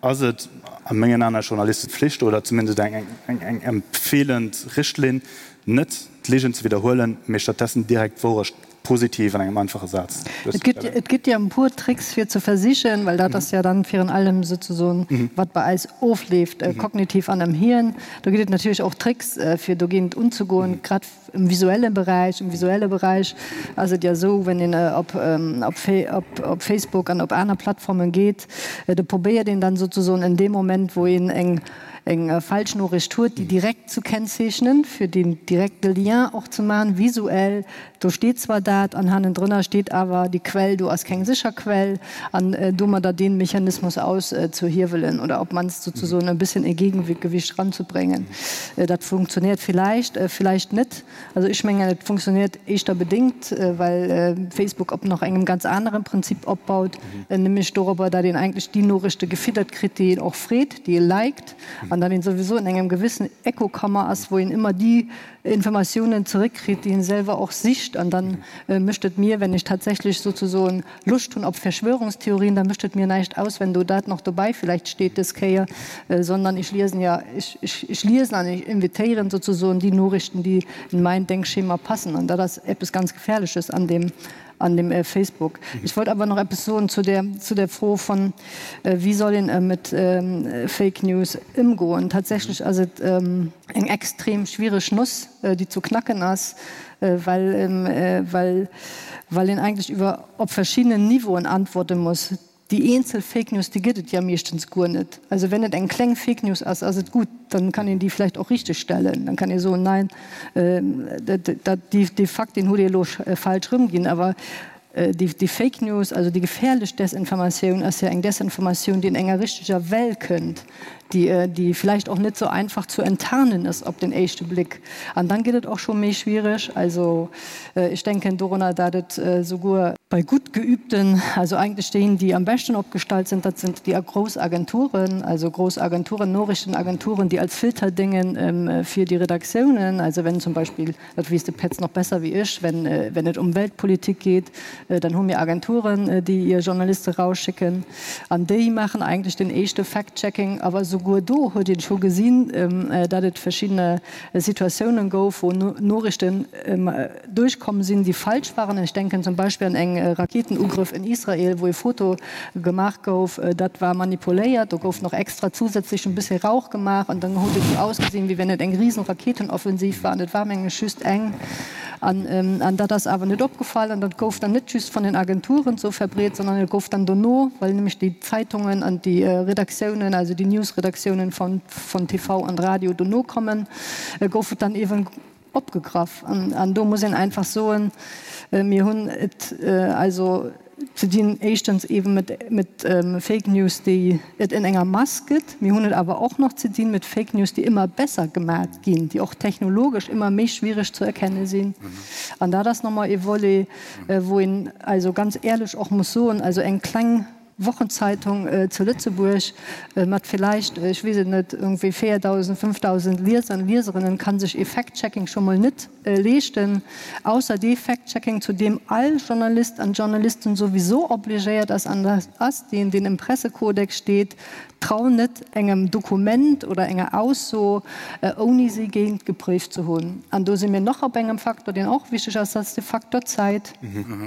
ass et a mengen Aen als Journalistepflicht oder zumindest eng eng eng empfeelend Richtlinn, net d'Ligen ze widderhuelen, mee stattdessen direkt d'Wourecht positiv an engem einfache Saz duerzestellen. Et gëtt jo e puer Tricks fir ze versichen, well dat ass jo dann virun allem souzesoen wat bei eis ofleeft kognitiv an am Hirn. Do gëtt et natierlech och Tricks fir dogéint unzegoen, grad im visuelle Beräich. Im visuelle Beräich ass et jo esou, wenn een op op Facebook an op aner Plattformen geet, do probéiert een dann souzesoen in deem Moment wou een eng eng Falschnoriicht huet, déi direkt zu kennzeechnen, fir deen direkte Lien och ze maachen, visuell. Do steet zwar dat an hannendrënner steet awer, déi Quell do ass keng sécher Quell, an domadder dee Mechanismus auszuhiewelen oder op d'mannst souzesoen e bësschen e Gegengewicht eranzubringen. Dat funktioniert villäicht, villäicht net. Also ech mengen, et funktioniert éischter bedéngt, well Facebook op nach engem ganz anere Prinzip opbaut, nämlech dorobber, datt een eigentlech déi Noriichte gefiddert kritt, déi een och freet, déi ee liked, an datt een souwisou an engem gewissen Echokammer ass, wou een ëmmer déi Informatiounen zeréckkritt, déi een selwer och sicht. An dann mécht et mir, wenn ech tatsächlech sozesoen Loscht hunn op Verschwörungstheorien, da mécht et mir näischt aus, wenn do dat nach dobäi vielleicht steet dës Kéier, sondern ech liesen ja, ech, ech, ech liesen an ech invitéieren sozesoen déi Norichten, déi in mein Denkschema passen. An dat ass eppes ganz Gefährleches an deem, an dem Facebook. Ech wollt awer nach eppes soen zu der, zu der Fro von, wéi soll een mit Fake News ëmgoen. Tatsächlech ass et eng extrem schwiereg Noss, déi zu knacken ass, well, well, well een eigentlech iwwer op verschiddenen Niveauen antworte muss. Déi eenzel Fake News, déi gëtt et ja meeschtens guer net. Also wenn et eng kleng Fake News ass, ass et gutt, dann kann een déi vläicht och richteg stellen. Dann kann ee soen, nein, dat, déi, dee Fakt, deen hutt Dir elo falsch erëmginn. Awer déi, déi Fake News, also déi gefährlech Desinformatioun ass ja eng Desinformatioun, déi in enger richteger Well kënnt, déi, déi vläicht och net sou einfach zu enttarnen ass op den éischte Blick. An dann gëtt et och scho méi schwierig. Also ech denken dorunner, dat et souguer bei gutt geübten, also eigentlech déi, déi am beschten opgestallt sind, dat sind déi grouss Agenturen, also grouss Agenturen, Noriichtenagenturen, déi als Filter déngen fir déi Redaktiounen. Also wenn zum Beispill, dat weess de Petz nach besser wéi ech, wenn, wenn et ëm Weltpolitik geet, dann hu mir Agenturen, déi hir Journaliste rausschicken an déi maachen eigentlech den éischte Fact-Checking. Awer souguer do huet een scho gesinn, datt et verschiddene Situatiounen gouf, wou Noriichten duerchkomm sinn, déi falsch waren. Ech denken zum Beispill an eng Raketenugrëff in Israel, wou e Foto gemaach gouf, dat war manipuléiert, do gouf nach extra zusätzlech en bëssi Rauch gemaach an dann huet et esou ausgesinn, wéi wenn et eng risen Raketenoffensiv war an et war mengen ech just eng. An dat ass awer net opgefall an dat gouf dann net just vun den Agenturen esou verbreet, sondern et gouf dann dono, well nämlech déi Zeitungen an déi Redaktiounen, also déi Newsredaktiounen vun TV an Radio dono kommen, gouf et dann eeben opgegraff. An do muss een einfach soen, mir hunn et also ze dinn éischtens eeben mat Fake News, déi et en enger Mass gëtt. Mir hunn et awer och nach ze dinn mat Fake News, déi ëmmer besser gemat ginn, déi och technologesch ëmmer méi schwierig ze erkenne sinn. An dat ass nochmol ee Volet, wou een also ganz éierlech och muss soen, also eng kleng Wochenzeitung zu Lëtzebuerg mat villäicht, ech weess et net, iergendwéi 4.000, 5.000 Lieser an Lieserinnen kann sech ee Fact-Checking scho mol net leeschten, ausser dee Fact-Checking, zu deem all Journalist an Journalistin souwiso obligéiert ass, an dat ass deen, deen im Pressekodex steet, Trau net engem Dokument oder enger Ausso, ouni si géintgepréift ze hunn. An do si mir nach op engem Faktor, deen och wichteg ass, dat ass de Faktor Zäit.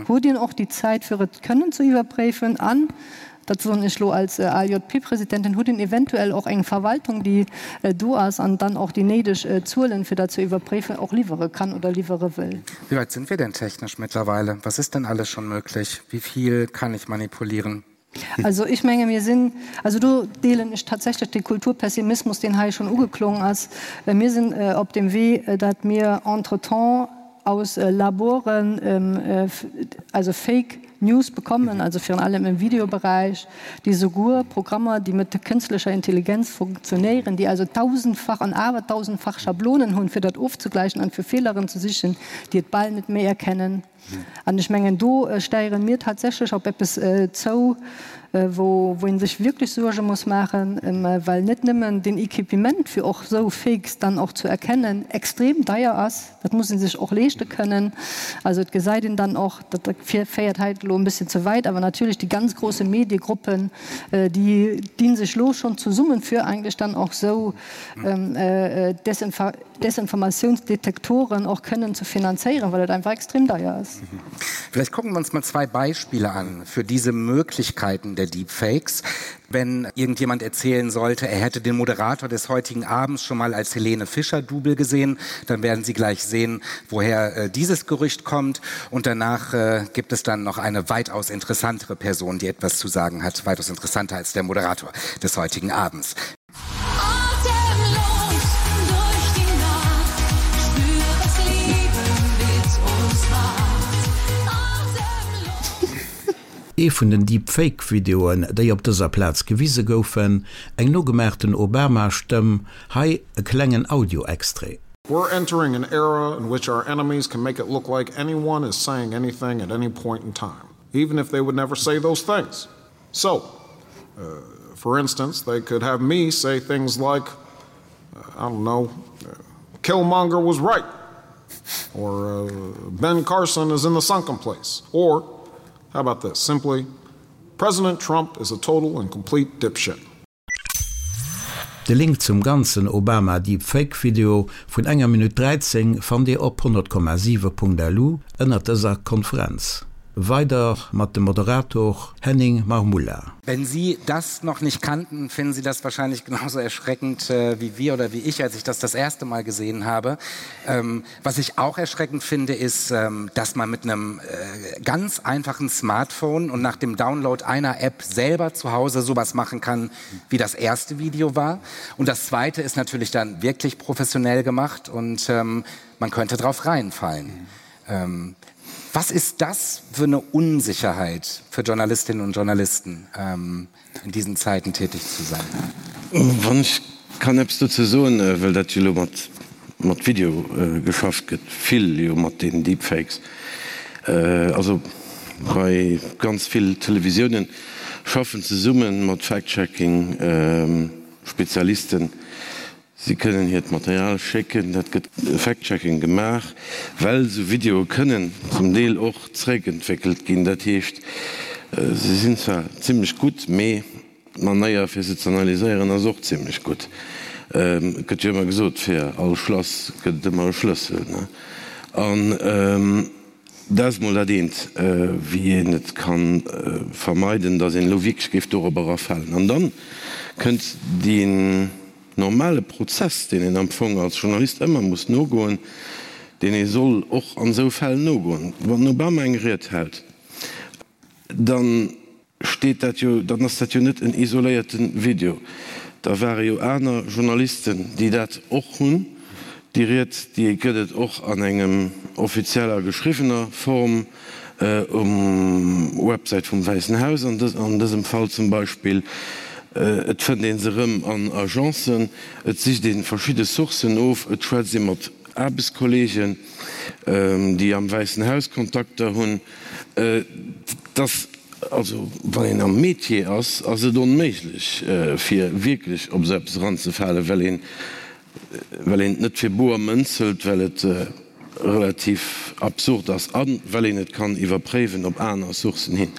Hutt een och déi Zäit, fir et kënnen ze iwwerpréifen? An, dat soen ech elo als ALJP-Presidentin, hutt een eventuell och eng Verwaltung, déi do ass an dann och déi néideg Zuelen, fir dat ze iwwerpréifen, och liwwere kann oder liwwere wëll? Wie weit sind wir denn technisch mittlerweile? Was ist denn alles schon möglich? Wie viel kann ich manipulieren? Also ech menge mir sinn, also do deelen ech tatsächlech de Kulturpessimismus, deen hei schonn ugeklongen ass, mir sinn op dem Wee, datt mir entretemps aus Laboren also Fake News bekommen, also virun allem im Videobereich, déi souguer Programmer, déi mat kënstlecher Intelligenz funktionéieren, déi also tausendfach an awertausendfach Schablonen hunn, fir dat ofzegläichen an fir Feeleren ze sichen, déi et bal net méi erkennen. An ech mengen, do steiere mir tatsächlech op eppes zou, wou ee sech wierklech Suerge muss maachen, well net nëmmen den Equipement, fir och esou Fakes dann och zu erkennen, extrem deier ass. Dat muss ee sech och leeschte kënnen. Also et gesäit een dann och, dat féiert hei elo e bësschen ze wäit, awer natierlech déi ganz grosse Mediegruppen, déi di sech elo schonn zesummen, fir eigentlech dann och esou Desinformatiounsdetektoren och kënnen ze finanzéieren, well et einfach extrem deier ass. Vielleicht gucken wir uns mal zwei Beispiele an für diese Möglichkeiten der Deepfakes. Wenn irgendjemand erzählen sollte, er hätte den Moderator des heutigen Abends schon mal als Helene Fischer Double gesehen, dann werden Sie gleich sehen, woher äh, dieses Gerücht kommt. Und danach äh, gibt es dann noch eine weitaus interessantere Person, die etwas zu sagen hat, weitaus interessanter als der Moderator des heutigen Abends. Ee vun den Deepfake-Videoen, déi op dëser Plaz gewise goufen, eng nogemaachten Obama-Stëmm, hei e klengen Audio-Extrait. We're entering an era in which our enemies can make it look like anyone is saying anything at any point in time, even if they would never say those things. So, uh, for instance, they could have me say things like, uh, I don't know, uh, Killmonger was right, or uh, Ben Carson is in the sunken place, or how about this? Simply, President Trump is a total and complete dipshit. De Link zum ganzen Obama Deepfake Video vun enger Minutt 13 fannt Dir op 100,7.lu ënnert dëser Konferenz. Weider mat dem Moderator Henning Marmulla. Wenn Sie das noch nicht kannten, finden Sie das wahrscheinlich genauso erschreckend äh, wie wir oder wie ich, als ich das das erste Mal gesehen habe. Ähm, was ich auch erschreckend finde, ist, ähm, dass man mit einem äh, ganz einfachen Smartphone und nach dem Download einer App selber zu Hause sowas machen kann, wie das erste Video war. Und das zweite ist natürlich dann wirklich professionell gemacht und ähm, man könnte drauf reinfallen. Mhm. Ähm, was ist das für eine Unsicherheit für Journalistinnen und Journalisten ähm, in diesen Zeiten tätig zu sein? Wann ech kann eppes dozou soen, well dat jo elo mat mat Video geschafft gëtt, vill jo mat den Deepfakes, also bei ganz vill Televisiounen schaffen zesumme mat Fact-Checking Spezialisten, Si kënnen hiert Material schécken, dat gëtt Fact-Checking gemaach, well esou Videoe kënnen zum Deel och zeréckentwéckelt ginn. Dat heescht, se sinn zwar zimmlech gutt, mee d'Manéier fir se ze analyséieren ass och zimmlech gutt. Et gëtt jo ëmmer gesot, fir all Schlass gëtt et ëmmer e Schlëssel. An dat ass mol dat eent, wéi een et ka vermeiden, datt een elo wierklech géif dorobber erafalen. An da kënnt deen normale Prozess, deen een am Fong als Journalist ëmmer muss nogoen. deen ee soll och an esou Fäll nogoen. Wann den Obama eng Ried hält, dann steet dat jo, dann ass dat jo net en isoléierte Video. Da ware jo aner Journalisten, déi dat och hunn. Déi Ried, déi gëtt et och an engem offizieller geschriwwener Form um Websäit vum Wäissen Haus an dësem Fall zum Beispill. Et fënnt ee se erëm an Agencen, et sicht ee verschidde Sourcen of, et schwätzt ee mat Aarbechtskolleegen, déi am Wäissen Haus Kontakter hunn. Et ass also, wann een am Metier ass, ass et onméiglech, fir wierklech op esou eppes eranzefalen, well een, well een et net fir boer Mënz hëlt, well et relativ absurd ass a well een et kann iwwerpréiwen op aner Sourcen hin,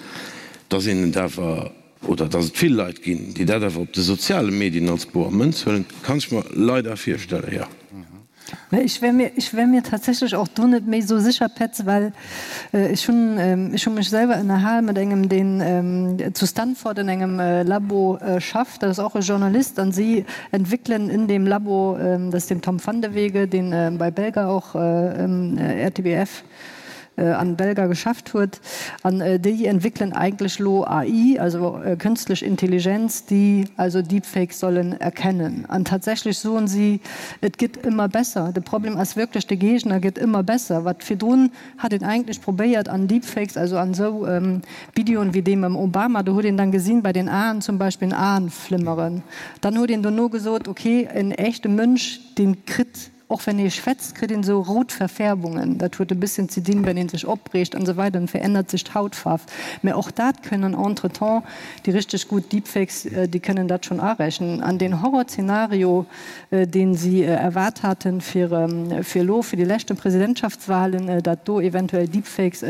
dass een et awer, oder dass et vill Leit ginn, déi dat awer op de soziale Medien als boer Mënz huelen, kann ech mer leider virstellen, jo. Ech wär mir, ech wär mir tatsächlech och do net méi esou sécher, Petz, well ech hunn, ech hu mech selwer ënnerhal mat engem, deen zu Stanford an engem Labo schafft, dat ass och e Journalist, an si entwéckelen in dem Labo, dat ass den Tom Vandeweghe, deen bei Belga och, RTBF, an Belga geschafft huet, an déi entwéckelen eigentlech elo AI, also kënstlech Intelligenz, déi also Deepfakes sollen erkennen. An tatsächlech soen si, et gëtt ëmmer besser. De Problem ass wierklech, de Géigner gëtt ëmmer besser. Wat virdrun hat een eigentlech probéiert an Deepfakes, also an esou Videoen wéi dee mam Obama, do huet een dann gesinn bei den Aen zum Beispill Aenflimmeren. Dann huet een dono gesot, okay, en echte Mënsch, dee kritt Och wenn ee schwätzt, kritt een esou rout Verfärbungen. Dat huet e bësschen ze dinn, wenn ee sech opreegt an esou weider, dann verännert sech d'Hautfaarf. Mä och dat kënnen entretemps déi richteg gutt Deepfakes, déi kënnen dat schonn arechnen. An deen Horrorzenario, dee si erwaart haten fir fir elo, fir déi leschte Presidentschaftswahlen, dat do eventuell Deepfakes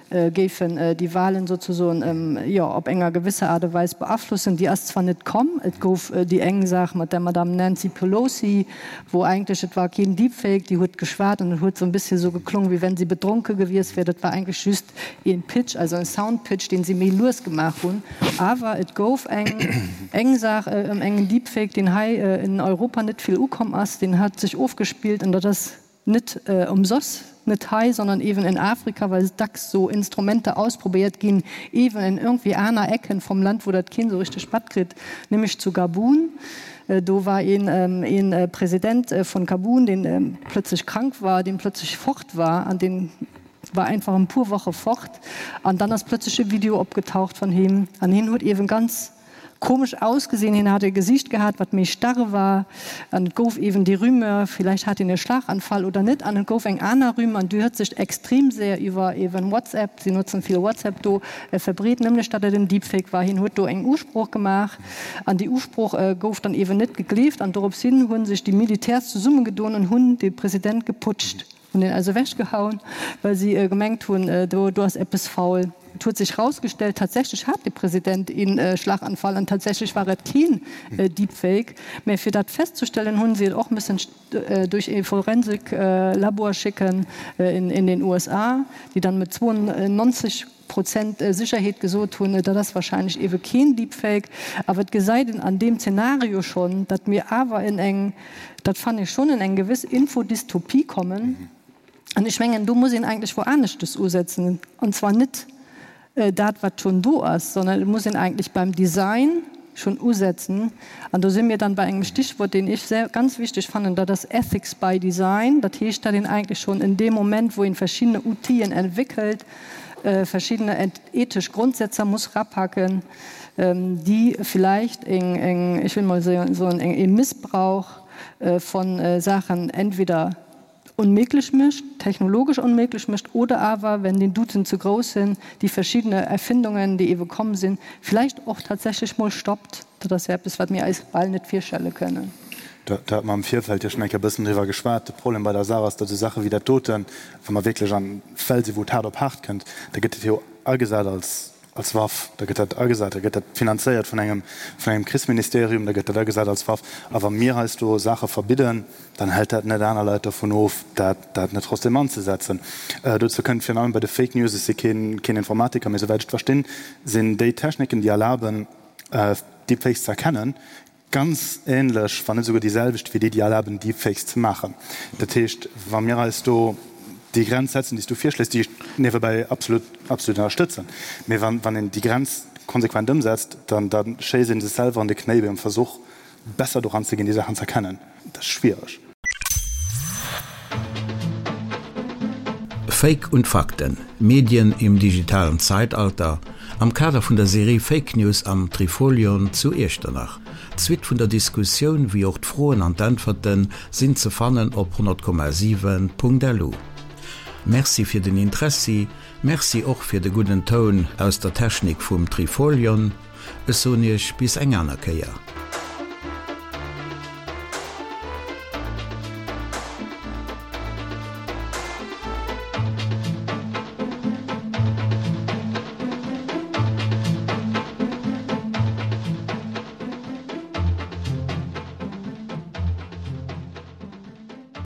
géifen déi Wahlen sozesoen, jo, op enger gewësser Aart a Weis beaflossen. Déi ass zwar net komm, et gouf déi eng Saach mat der Madame Nancy Pelosi, wou eigentlech, et war keen Deepfake, déi huet geschwat an et huet sou e bësschen esou geklong, wéi wenn si bedronke gewiesst wär. Dat war eigentlech just een Pitch, also en Soundpitch, deen si méi lues gemaach hunn. Awer et gouf eng eng Saach ëm engen Deepfake, deen hei in Europa net vill ukomm ass, deen hat sech ofgespillt an dat ass, Net ëmsoss, net hei, sondern ewen in Afrika, well dacks so Instrumenter ausprobéiert ginn, ewen in irgendwie aner Ecken vom Land, wou dat keen sou richteg matkritt, nämlech zu Gabun. Do war een een President von Gabun, deen plötzlech krank war, deen plötzlech fort war an deen war einfach en puer Woche fort an dann ass plötzlech e Video opgetaucht von him an hien huet ewen ganz Komesch ausgesinn, hien hat e Gesicht gehat, wat méi starr war, an et gouf eeben déi Rumeur, villäicht hat hien e Schlaganfall oder net, an et gouf eng aner Rumeur, an déi huet sech extrem séier iwwer eeben WhatsApp, si notzen vill WhatsApp do, verbreet, nämlech datt et en Deepfake war. Hien huet do eng Usprooch gemaach, an déi Usprooch gouf dann eeben net gegleeft, an dorops hin hu sech déi Militärs zesummegedoen an hunn de President geputscht. Hunn en eis ewech gehauen, well si gemengt hunn, do do ass eppes faul. Et huet sech rausgestellt, tatsächlech hat de President een Schlaganfall an tatsächlech war et keen Deepfake. Mä fir dat festzustellen, hunn si et och müssen duerch ee Forensiklabor schécken in den USA, déi dann mit 92 Prozent Sécherheet gesot hunn, dat ass wahrscheinlech eebe keen Deepfake. Awer et gesäit een an deem Zeenario schonn, datt mir awer in eng, dat fannen ech schonn, in eng gewëss Infodystopie kommen. An ech mengen, do muss een eigentlech wou aneschtes usetzen, an zwar net dat, wat schonn do ass, sondern et muss een eigentlech beim Design schonn usetzen. An do si mir dann bei engem Stichwort, deen ech sehr, ganz wichteg fannen, dat ass Ethics by Design. Dat heescht, datt een eigentlech schonn in deem Moment, wou een verschiddene Outile entwéckelt, verschiddene ethesch Grondsätzer muss rapacken, déi vielleicht eng, eng, ech will mol soen, eng, ee Missbrauch von Saachen entweder onméiglech mécht, technologesch onméiglech mécht, oder awer, wenn den Douten ze grouss sinn, déi verschiddene Erfindungen, déi ewe komm sinn, vielleicht och tatsächlech mol stoppt. Dat ass jo eppes, wat mir eis bal net virstelle kënnen. Do hate mer am Virfeld jo schonn eng Kéier e bëssen driwwer geschwat. De Problem bei der Saach ass, datt esou Saache wéi dat doten, wa mer wierklech an Fäll sinn, wou et haart op haart kënnt, da gëtt dat jo agesat als, als Waff. Da gëtt dat agesat, da gëtt dat finanzéiert vun engem, vun engem Krichsministerium, da gëtt dat agesat als Waff. A wa mir heiansdo Saache verbidden, dann hält dat net aner Leit dovun of, dat, dat net trotzdem anzesetzen. Dozou kënnt virun allem bei de Fake News, ech si keen, keen Informatiker, mee souwäit ech et verstinn, sinn déi Techniken, déi erlaben, Deepfakes ze erkennen. Ganz ähnlech, wann net esouguer déi selwecht wéi déi, déi erlaben, Deepfakes ze maachen. Dat heescht, wa mir eis do déi Grenz setzen, déi s du virschléis, déi ech niewebäi absolut, absolut ënnerstëtzen, mee wann, wann een déi Grenz konsequent ëmsetzt, dann, da schéisst ee sech selwer an de Knéi beim Versuch, besser doran ze ginn, déi Saachen ze erkennen. Dat ass schwiereg. Fake und Fakten, Medien im digitalen Zeitalter, am Kader vun der Serie Fake News am Trifolion zu Iechternach. D'Suite vun der Diskussioun, wéi och d'Froen an d'Äntwerte sinn ze fannen op 100,7.lu. Merci fir den Interessi, Merci och fir de gudden Toun aus der Technik vum Trifolion. Ech soen Iech bis eng aner Kéier.